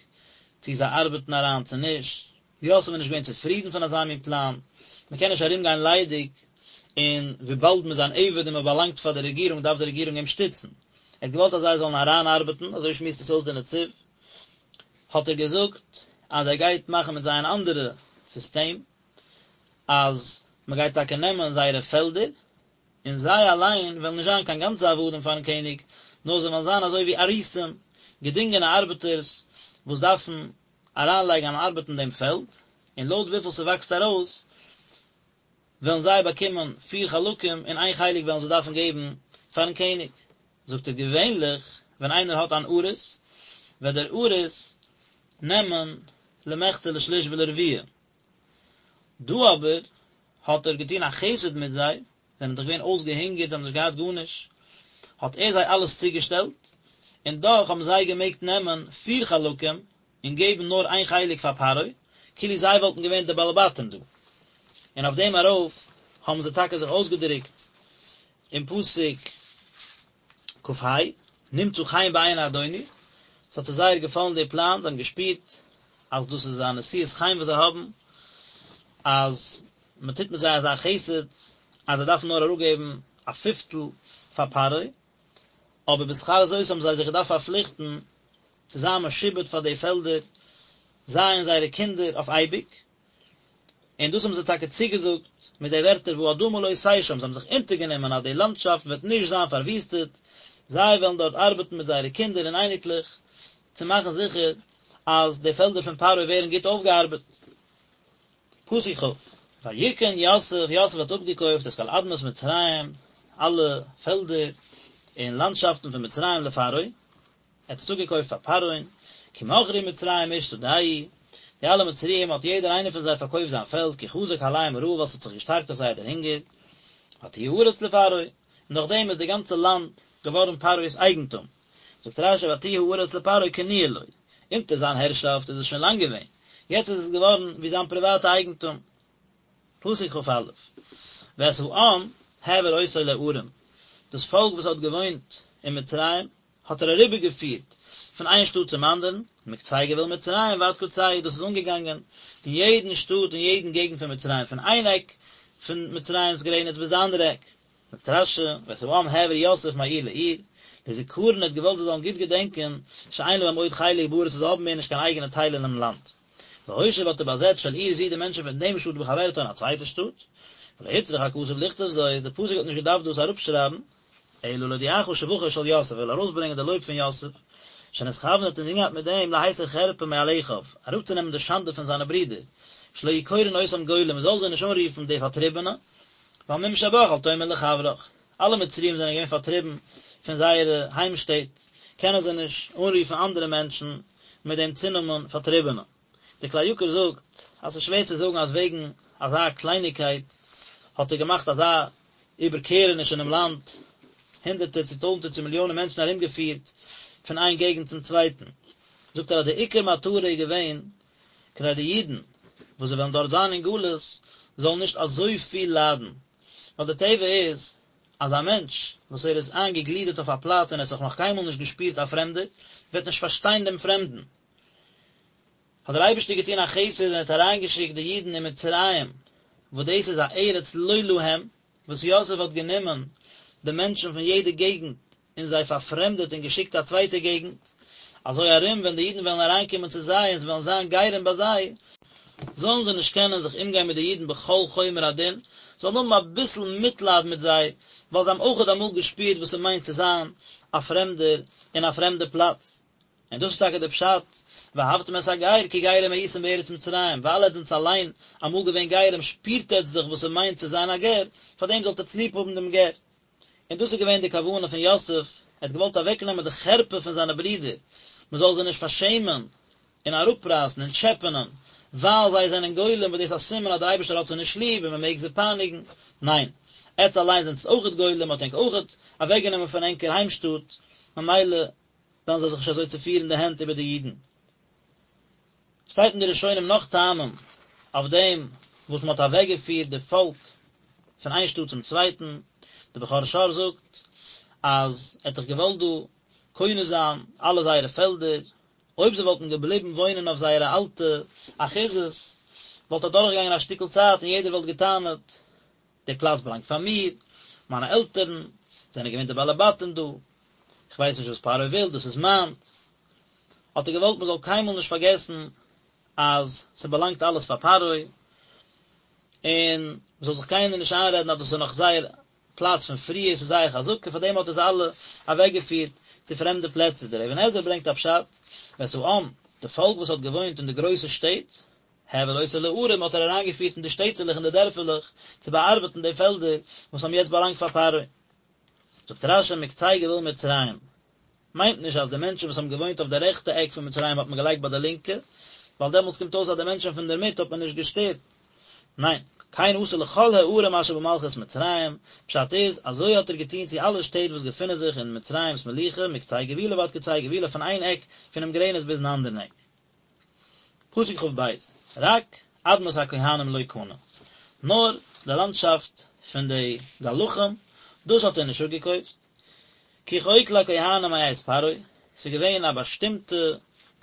צו זיי ארבעטן אריין צו נישט, יוסף איז נישט געווען צופרידן פון אזא מין פלאן, מען קען נישט ארום גיין ליידיג, און וויבאלד מען איז אן עבד און מען באלאנגט פאר די רעגירונג דארף די רעגירונג אים שטיצן. ער האט געוואלט אז זיי זאלן אריינארבעטן, אזוי שמועסט עס אויס דער נציב, האט ער געזאגט אז ער גייט מאכן מיט זיי אן אנדערע סיסטעם, אז מען גייט טאקע נעמען זייערע פעלדער, און זיי אליין וועלן נישט זיין קיין גאנצע עבדים פארן קעניג, נאר זיי וועלן זיין אזוי ווי אריסים, געדינגענע ארבעטערס, וואס דארפן אריינלייגן אן ארבעט אין דעם פעלד, און לויט וויפיל ס'וואקסט ארויס, וועלן זיי באקומען פיר חלקים און איין חלק וועלן זיי דארפן געבן פארן קעניג. זאגט ער געווענליך ווען איינער האט אן אריס וועט דער אריס נעמען למחצה לשליש ולרביע, דא אבער האט ער געטון א חסד מיט זיי, זיי זענען דאך געווען אויסגעהונגערט, זיי האבן נישט געהאט גארנישט, האט ער זיי אלעס צוגעשטעלט, און דאך האבן זיי געמעגט נעמען פיר חלקים און געבן נאר איין חלק פאר פרעה, כאילו זיי וואלטן געווען די בעלי בתים דא. און אויף דעם ארויף האבן זיי טאקע זיך אויסגעדרוקט אין פסוק כ"ה, נמצא חן בעיני אדוני, ס'האט זיי זייער געפאלן די פלאן, זיי האבן געשפירט אז דאס איז א נשיאת חן וואס זיי האבן, אז מען טוט מיט זיי אזא חסד, אז זיי דארפן נאר אראפגעבן א פיפטל פאר פרעה, אבער בשכר זאת האבן זיי זיך געדארפט פארפליכטן צו זיין משועבד פאר די פעלדער, זיי און זייערע קינדער אויף אייביג, און דאס האבן זיי טאקע צוגעזאגט מיט די ווערטער והאדמה לא תשם, זיי האבן זיך אונטערגענומען אז די לאנדשאפט וועט נישט זיין פארוויסטעט, זיי וועלן דארט ארבעטן מיט זייערע קינדער און אייניקלעך צו מאכן זיכער אז די פעלדער פון פרעה ווערן גוט אויפגעארבעט. פסוק כ', ויקן יוסף, יוסף האט אפגעקויפט את כל אדמת מצרים, אלע פעלדער און לאנדשאפטן פון מצרים לפרעה, ער האט עס אפגעקויפט פאר פרעה'ן, כי מכרו מצרים איש שדהו, די אלע מצריים האט יעדער איינער פון זיי פארקויפט זיין פעלד, כי חזק עליהם הרעב ווייל עס האט זיך געשטארקט אויף זיי דער הונגער, ותהי הארץ לפרעה, און נאכדעם איז די גאנצע לאנד געווארן פרעה'ס אייגנטום. זאגט רש"י ותהי הארץ לפרעה קנויה לו, אונטער זיין הערשאפט איז עס שוין לאנג געווען, יעצט איז עס געווארן ווי זיין פריוואטע אייגנטום. פסוק כ"א, ואת העם העביר אותו לערים, דאס פאלק וואס האט געוואוינט אין מצרים האט ער אריבערגעפירט פון איין שטאט צום אנדערן, מקצה גבול מצרים ועד קצהו, דאס איז אנגעגאנגען אין יעדן שטאט און יעדן געגנט פון מצרים, פון איין עק פון מצרים'ס גרעניץ ביז די אנדערע עק. זאגט רש"י, ואת העם העביר יוסף מעיר לעיר, לזכרון ער האט געוואלט זיי זאלן גוט געדענקען, שאין להם עוד חלק בארץ זיי האבן מער נישט קיין אייגענע טייל אינעם לאנד. והושיב האט ער באזעצט של עיר זו די מענטשן פון דעם שטאט בחברתה אין א צווייטע שטאט. ולא הוצרך הכתוב לכתוב זאת, די פסוק האט נישט געדארפט דאס אראפשרייבן, אלא להודיעך שבחו של יוסף, ער וויל ארויסברענגען די לויב פון יוסף, שנתכוון האט אינזין געהאט מיט דעם להסיר חרפה מעל אחיו, אראפצונעמען די שאנדע פון זיינע ברידער, שלא יהו קורין אותם גולים, מען זאל זיי נישט אנרופן די פארטריבענע, ווייל מום שבך אל תאמר לחברך, אלע מצריים זענען געווען פארטריבן פון זייערע היימשטעט, קענען זיי נישט אנרופן אנדערע מענטשן מיט דעם צונאמען פארטריבענע. דער כלי יקר זאגט אז ס'איז שווער צו זאגן אז וועגן אזא קלייניגקייט האט ער געמאכט אזא איבערקערעניש אינעם לאנד, הונדערטער צו טויזנטער צו מיליאנען מענטשן ארומגעפירט פון איין געגנט צום צווייטן. זאגט ער אז די עיקר מטרה איז געווען כדי די אידן וואס זיי וועלן דארט זיין אין גלות זאלן נישט אזויפיל ליידן, ווייל די טבע איז אז א מענטש וואס ער איז איינגעגלידערט אויף א פלאץ און ער האט זיך נאך קיינמאל נישט געשפירט א פרעמדער, וועט נישט פארשטיין דעם פרעמדן. האט דער אייבערשטער געטון א חסד און האט אריינגעשיקט די אידן אין מצרים, וואס דאס איז א ארץ לא להם, וואס יוסף האט גענומען די מענטשן פון יעדע געגנט און זיי פארפרעמדעט און געשיקט א צווייטע געגנט, אזוי ארום ווען די אידן וועלן אריינקומען צו זיי און זיי וועלן זיין גרים ביי זיי, זאלן זיי נישט קענען זיך אומגיין מיט די אידן בכל חומר הדין, זאלן האבן אביסל מיטלייד מיט זיי, ווייל זיי האבן אויכעט אמאל געשפירט וואס ס'מיינט צו זיין א פרעמדער אין א פרעמדע פלאץ. און דאס איז טאקע דער פשט, ואהבתם את הגר כי גרים הייתם בארץ מצרים, ווייל עטס זענטס אליין אמאל געווען גרים שפירט עטס דאך וואס ס'מיינט צו זיין א גר, פארדעם זאלט עטס ליב האבן דעם גר. און דאס איז געווען די כוונה פון יוסף, ער האט געוואלט אוועקנעמען די חרפה פון זיינע ברידער, מען זאל זיי נישט פארשעמען און אראפרייסן און טשעפענען, ווייל זיי זענען גולים, וואס דאס איז א סימן אז דער אייבערשטער האט זיי נישט ליב און מען מעג זיי פייניגן, ניין, עטס אליין זענטס אויכעט גולים, מען האט ענק אויכעט אוועקגענומען פון ענקער היימשטאט, ממילא וועלן זיי זיך נישט אזוי צופירן די הענט איבער די אידן. שטייט אין די ראשונים נאך טעמים אויף דעם וואס מען האט אוועקגעפירט די פאלק פון איין שטאט צום צווייטן, די בכור שור זאגט אז ער האט דאך געוואלט דא קונה זיין אלע זייערע פעלדער, אויב זיי וואלטן געבליבן וואוינען אויף זייערע אלטע אחוזות וואלט אדורכגעגאנגען א שטיקל צייט און יעדער וואלט געטענה'ט די פלאץ באלאנגט פאר מיר, מיינע עלטערן זענען געווען די בעלי בתים דא, איך ווייס נישט וואס פרעה וויל, דאס איז מיינס. האט ער געוואלט מען זאל קיינמאל נישט פארגעסן אז ס'באלאנגט אלעס פאר פרעה, און מ'זאל זיך קיינער נישט איינרעדן אז דאס איז נאך זייער פלאץ פון פריער, ס'איז זייער חזקה, פאר דעם האט ער זיי אלע אוועקגעפירט צו פרעמדע פלעצער. דער אבן עזרא ברענגט א פשט, ואת העם, די פאלק וואס האט געוואוינט אין די גרויסע שטעט, העביר אותו לערים האט ער אריינגעפירט אין די שטעטעלעך און די דערפעלעך צו באארבעטן די פעלדער וואס האבן יעצט באלאנגט פאר פרעה. זאגט רש"י מקצה גבול מצרים, מיינט נישט אז די מענטשן וואס האבן געוואוינט אויף די רעכטע עק פון מצרים האט מען געלייגט ביי די לינקע, ווייל דעמאלטס קומט אויס אז די מענטשן פון דערמיט האט מען נישט געשטערט. ניין, כן עשה לכל הערים אשר במלכות מצרים, פשט איז, אזוי האט ער געטון צו אלע שטעט וואס געפינען זיך אין מצרים'ס מלוכה, מקצה גבולה ועד קצה גבולה פון איין עק פונעם גרעניץ ביזן אנדערן עק. פסוק כ"ב, רק אדמת הכהנים לא קנה, נאר די לאנדשאפט פון די גלחים, דאס האט ער נישט אפגעקויפט, כי חוק לכהנים מאת פרעה, ס'איז געווען א באשטימטע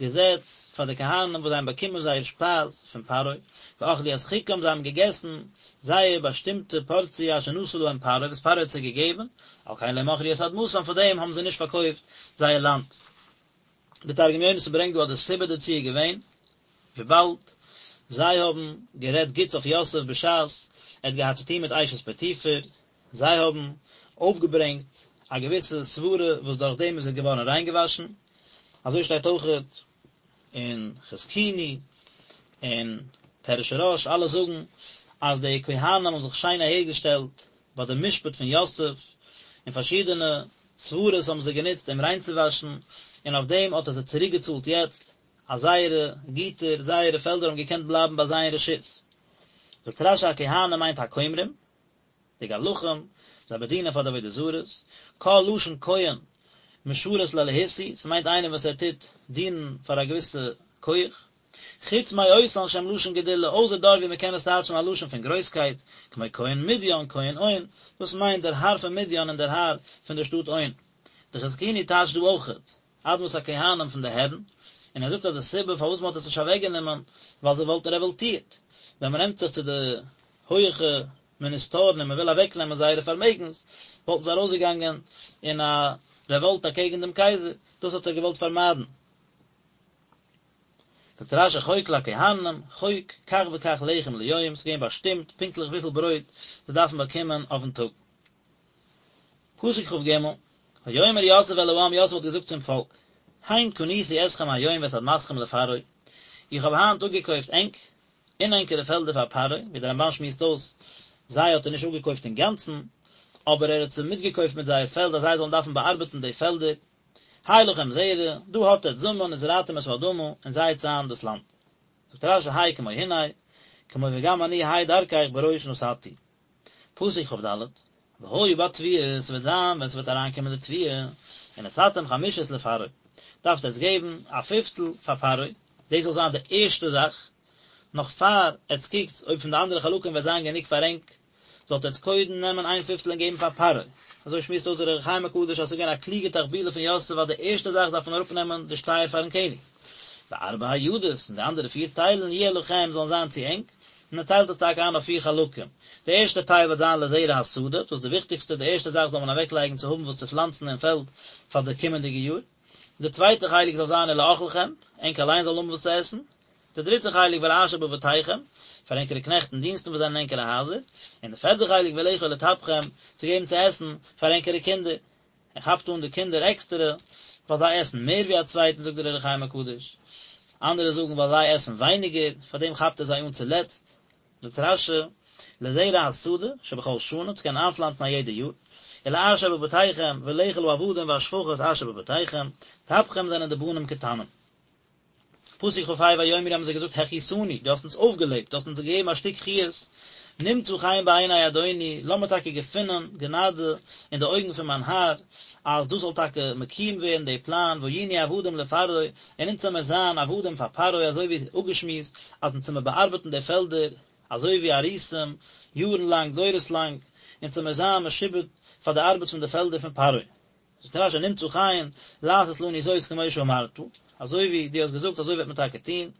געזעץ פאר די כהנים וואס זיי האבן באקומען זייער שפייז פון פרעה, ואכלו את חוקם, זיי האבן געגעסן זייער באשטימטע פארציע אשר נתן להם פרעה, וואס פרעה האט זיי געגעבן, על כן לא מכרו את אדמתם, פאר דעם האבן זיי נישט פארקויפט זייער לאנד. די תרגום יונתן ברענגט דא אז די סיבה דערצו איז געווען, וויבאלד זיי האבן גערעדט גוטס אויף יוסף בשעת ער האט געהאט צוטון מיט אשת פוטיפר, זיי האבן אויפגעברענגט א געוויסע סברה וואס דורך דעם איז ער געווארן ריינגעוואשן, אזוי שטייט אויכעט אין חזקוני און פירוש הרא"ש, אלע זאגן אז די כהנים האבן זיך שיין אהערגעשטעלט ביי די משפט פון יוסף, און פארשידענע סברות האבן זיי גענוצט אים ריינצואוואשן, און אויף דעם האט ער זיי צוריקגעצאלט יעצט, אז זייערע גיטער, זייערע פעלדער האבן געקענט בלייבן ביי זיי אין רשות. זאגט רש"י הכהנים מיינט הכומרים, די גלחים, זיי באדינען פאר די עבודה זרות, כל לשון כהן משרת לאלהות הוא, ס'מיינט איינער וואס ער טוט דינען פאר א געוויסע כח, חוץ מאותן שהם לשון גדולה, אויסער דארט ווי מ'קען עס טייטשן א לשון פון גרויסקייט, כמו כהן מדין, כהן און, דאס מיינט דער האר פון מדין און דער האר פון דער שטאט און. די חזקוני טייטשט דא אויכעט, אדמת הכהנים פון די הערן, און ער זאגט אז די סיבה פארוואס מ'האט עס נישט אוועקגענומען, ווייל זיי וואלטן רעוואלטירט, ווען מ'נעמט זיך צו די הויעכע מיניסטארן און מ'וויל אוועקנעמען זייערע פארמעגנס, וואלטן זיי ארויסגעגאנגען אין א רעוואלט אקעגן דעם קייזער, דאס האט ער געוואלט פארמיידן. זאגט רש"י חוק לכהנים, חוק, כך וכך לחם ליום, ס'איז געווען באשטימט פונקטליך וויפיל ברויט זיי דארפן באקומען אויפן טאג. פסוק כ"ג, ויאמר יוסף אל העם, יוסף האט געזאגט צום פאלק, הן קניתי אתכם היום ואת אדמתכם לפרעה, איך האב היינט אפגעקויפט ענק און ענקערע פעלדער פאר פרעה, ווי דער רמב"ן שמועסט אויס, זיי האט ער נישט אפגעקויפט אינגאנצן, אבער ער האט זיי מיטגעקויפט מיט זייער פעלד אז זיי זאלן דארפן באארבעטן די פעלדער, הא לכם זרע, דא האט עטץ זאמען וזרעתם את האדמה, און זייטס איין דאס לאנד. זאגט רש"י ה' כמו הנה, כמו וגם אני ה' דרכך בראש נתתי. פסוק כ"ד, והיה בתבואה, ס'וועט זיין ווען ס'וועט אריינקומען די תבואה, ונתתם חמישית לפרעה, דארפט עטץ געבן א פיפטל פאר פרעה, דאס זאל זיין די ערשטע זאך, נאך פאר עטץ קוקטס אויב פון די אנדערע חלקים וועט זיין גענוג פאר ענק, זאלט עטץ קודם נעמען איין פיפטל און געבן פאר פרעה. אזוי שמועסט אויס דער אור החיים הקדוש אז ס'איז געווען א קלוגע תחבולה פון יוסף אז די ערשטע זאך דארף מען אראפנעמען די שטייער פארן קעניג. וארבע הידות, און די אנדערע פיר טיילן, יהיה לכם, זאלן זיין צו ענק, און ער טיילט עס טאקע איין אויף פיר חלקים. די ערשטע טייל וועט זיין לזרע השדה, דאס איז די וויכטיגסטע, די ערשטע זאך זאל מען אוועקלייגן צו האבן וואס צו פלאנצן אין פעלד פאר די קומענדיגע יאר. די צווייטע חלק זאל זיין ולאכלכם, ענק אליין זאלן האבן וואס צו עסן. די דריטע חלק ולאשר בבתיכם, פאר ענקערע קנעכט און דינסטן וואס זענען אין ענקערע הייזער, און די פערטע חלק ולאכול לטפכם, צו געבן צו עסן פאר ענקערע קינדער. ער כאפט אן די קינדער עקסטערע, ווייל זיי עסן מער ווי א צווייטן זאגט דער אור החיים הקדוש. אנדערע זאגן ווייל זיי עסן ווייניגער, פאר דעם כאפט ער זיי אן צולעצט. זאגט רש"י, לזרע השדה, שבכל שנה, צו קענען איינפלאנצן א יעדע יאר, ולאשר בבתיכם, ולאכול העבדים והשפחות אשר בבתיכם, טפכם זענען די בנים קטנים. פסוק כ"ה ויאמרו האבן זיי געזאגט החייתנו, דו האסט אונז אויפגעלעבט, דו האסט אונז געגעבן א שטיק חיות, נמצא חן בעיני אדוני, לאמיר טאקע געפינען גענאדע אין די אויגן פון מיין האר, אז דאס זאל טאקע מקוים ווערן די פלאן, והיינו עבדים לפרעה, און אונז זאל מיר זיין עבדים פאר פרעה, אזוי ווי אפגעשמועסט, אז אונז זאל מיר באארבעטן די פעלדער, אזוי ווי אריסים, יארן לאנג, דורות לאנג, אונז זאל מיר זיין משועבד פאר די ארבעט פון די פעלדער פון פרעה. זאגט רש"י נמצא חן לעשות לנו זאת כמו שאמרת, אזוי ווי דו האסט געזאגט אזוי וועט מען טאקע טון,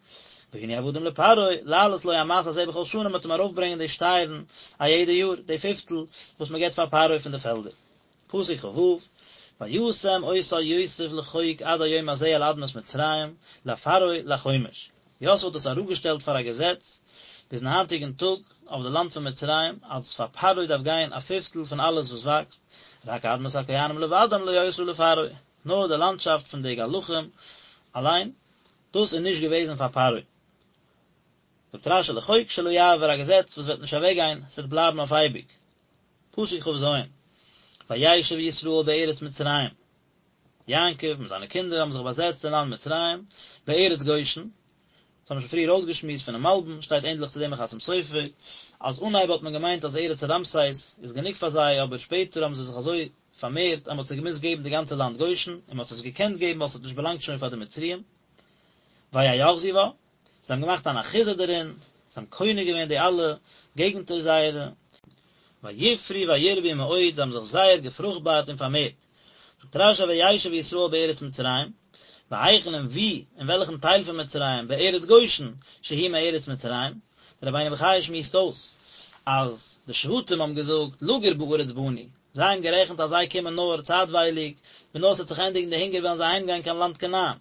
והיינו עבדים לפרעה, להעלות לו המס הזה בכל שנה, מען וועט אים ארויפברענגען די שטייערן א יעדע יאר, די פיפטל וואס מען געבט פאר פרעה פון די פעלדער. פסוק כ"ו, וישם אותה יוסף לחוק עד היום הזה על אדמת מצרים, לפרעה לחומש. יוסף האט עס אראפגעשטעלט פאר א געזעץ ביזן היינטיגן טאג אויף די לאנד פון מצרים, אז פאר פרעה דארף גיין א פיפטל פון אלעס וואס וואקסט, רק אדמת הכהנים לבדם לא היתה לפרעה, נאר די לאנדשאפט פון די גלחים אליין, דאס איז נישט געוועזן פאר פרעה. זאגט רשי לחוק שלא יעבור א געזעץ וואס וועט נישט אוועק גיין, עס וועט בלייבן אויף אייביג. פסוק כ"ז, וישב ישראל בארץ מצרים, יעקב מיט זיינע קינדער האבן זיך באזעצט אין לאנד מצרים, בארץ גושן, דאס האבן מיר שוין פריער אויסגעשמועסט פונעם מלבי"ם, שטייט ענדליך צו דעם אין חתם סופר, אז אנהייב האט מען געמיינט אז ארץ רעמסס איז גענוג פאר זיי, אבער שפעטער האבן זיי זיך אזוי פארמערט אז מען האט זיי געמוזט געבן די גאנצע לאנד גושן, און מען האט עס געקענט געבן ווייל עס האט נישט באלאנגט שוין פאר די מצריים. ויאחזו בה, זיי האבן געמאכט אן אחיזה דערין, זיי האבן קונה געווען די אלע געגנטער זייערע. ויפרו וירבו מאוד, זיי האבן זיך זייער געפרוכטבארט און פארמערט. זאגט רש"י וישב ישראל בארץ מצרים, והיכן און וואו, אין וועלכן טייל פון מצרים, בארץ גושן, שהיא מארץ מצרים, דער רבינו בחיי שמועסט אויס, אז די שבטים האבן געזאגט לגור בארץ באנו, זיי האבן גערעכנט אז זיי קומען נאר צייטווייליג, ווען נאר ס'וועט זיך ענדיגן די הונגער וועלן זיי אהיימגיין קיין לאנד כנען.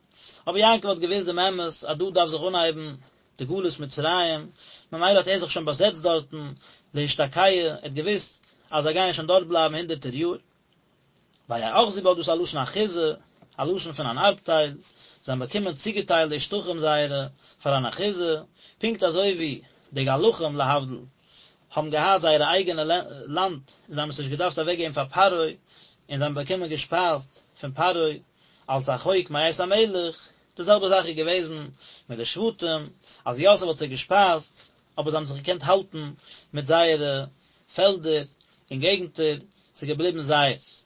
אבער יעקב האט געוואוסט דעם אמת אז דא דארף זיך אנהייבן די גלות מצרים, ממילא האט ער זיך שוין באזעצט דארטן להשתקע, ער האט געוואוסט אז זיי גייען שוין דארט בלייבן הונדערטער יאר. ויאחזו בה דאס איז א לשון אחיזה, א לשון פון אן ארבטייל, זיי האבן באקומען צוגעטיילט די שטחים זייערע פאר אן אחיזה, פונקט אזוי ווי די גלחים להבדיל האבן געהאט זייערע אייגענע לאנד און זיי האבן עס נישט געדארפט אוועקגעבן פאר פרעה, און זיי האבן באקומען געשפייזט פון פרעה אלס א חוק מאת המלך, די זעלבע זאך איז געוועזן מיט די שבטים, אז יוסף האט זיי געשפייזט, אבער זיי האבן זיך געקענט האלטן מיט זייערע פעלדער און געגנטער, ס'איז געבליבן זייערס.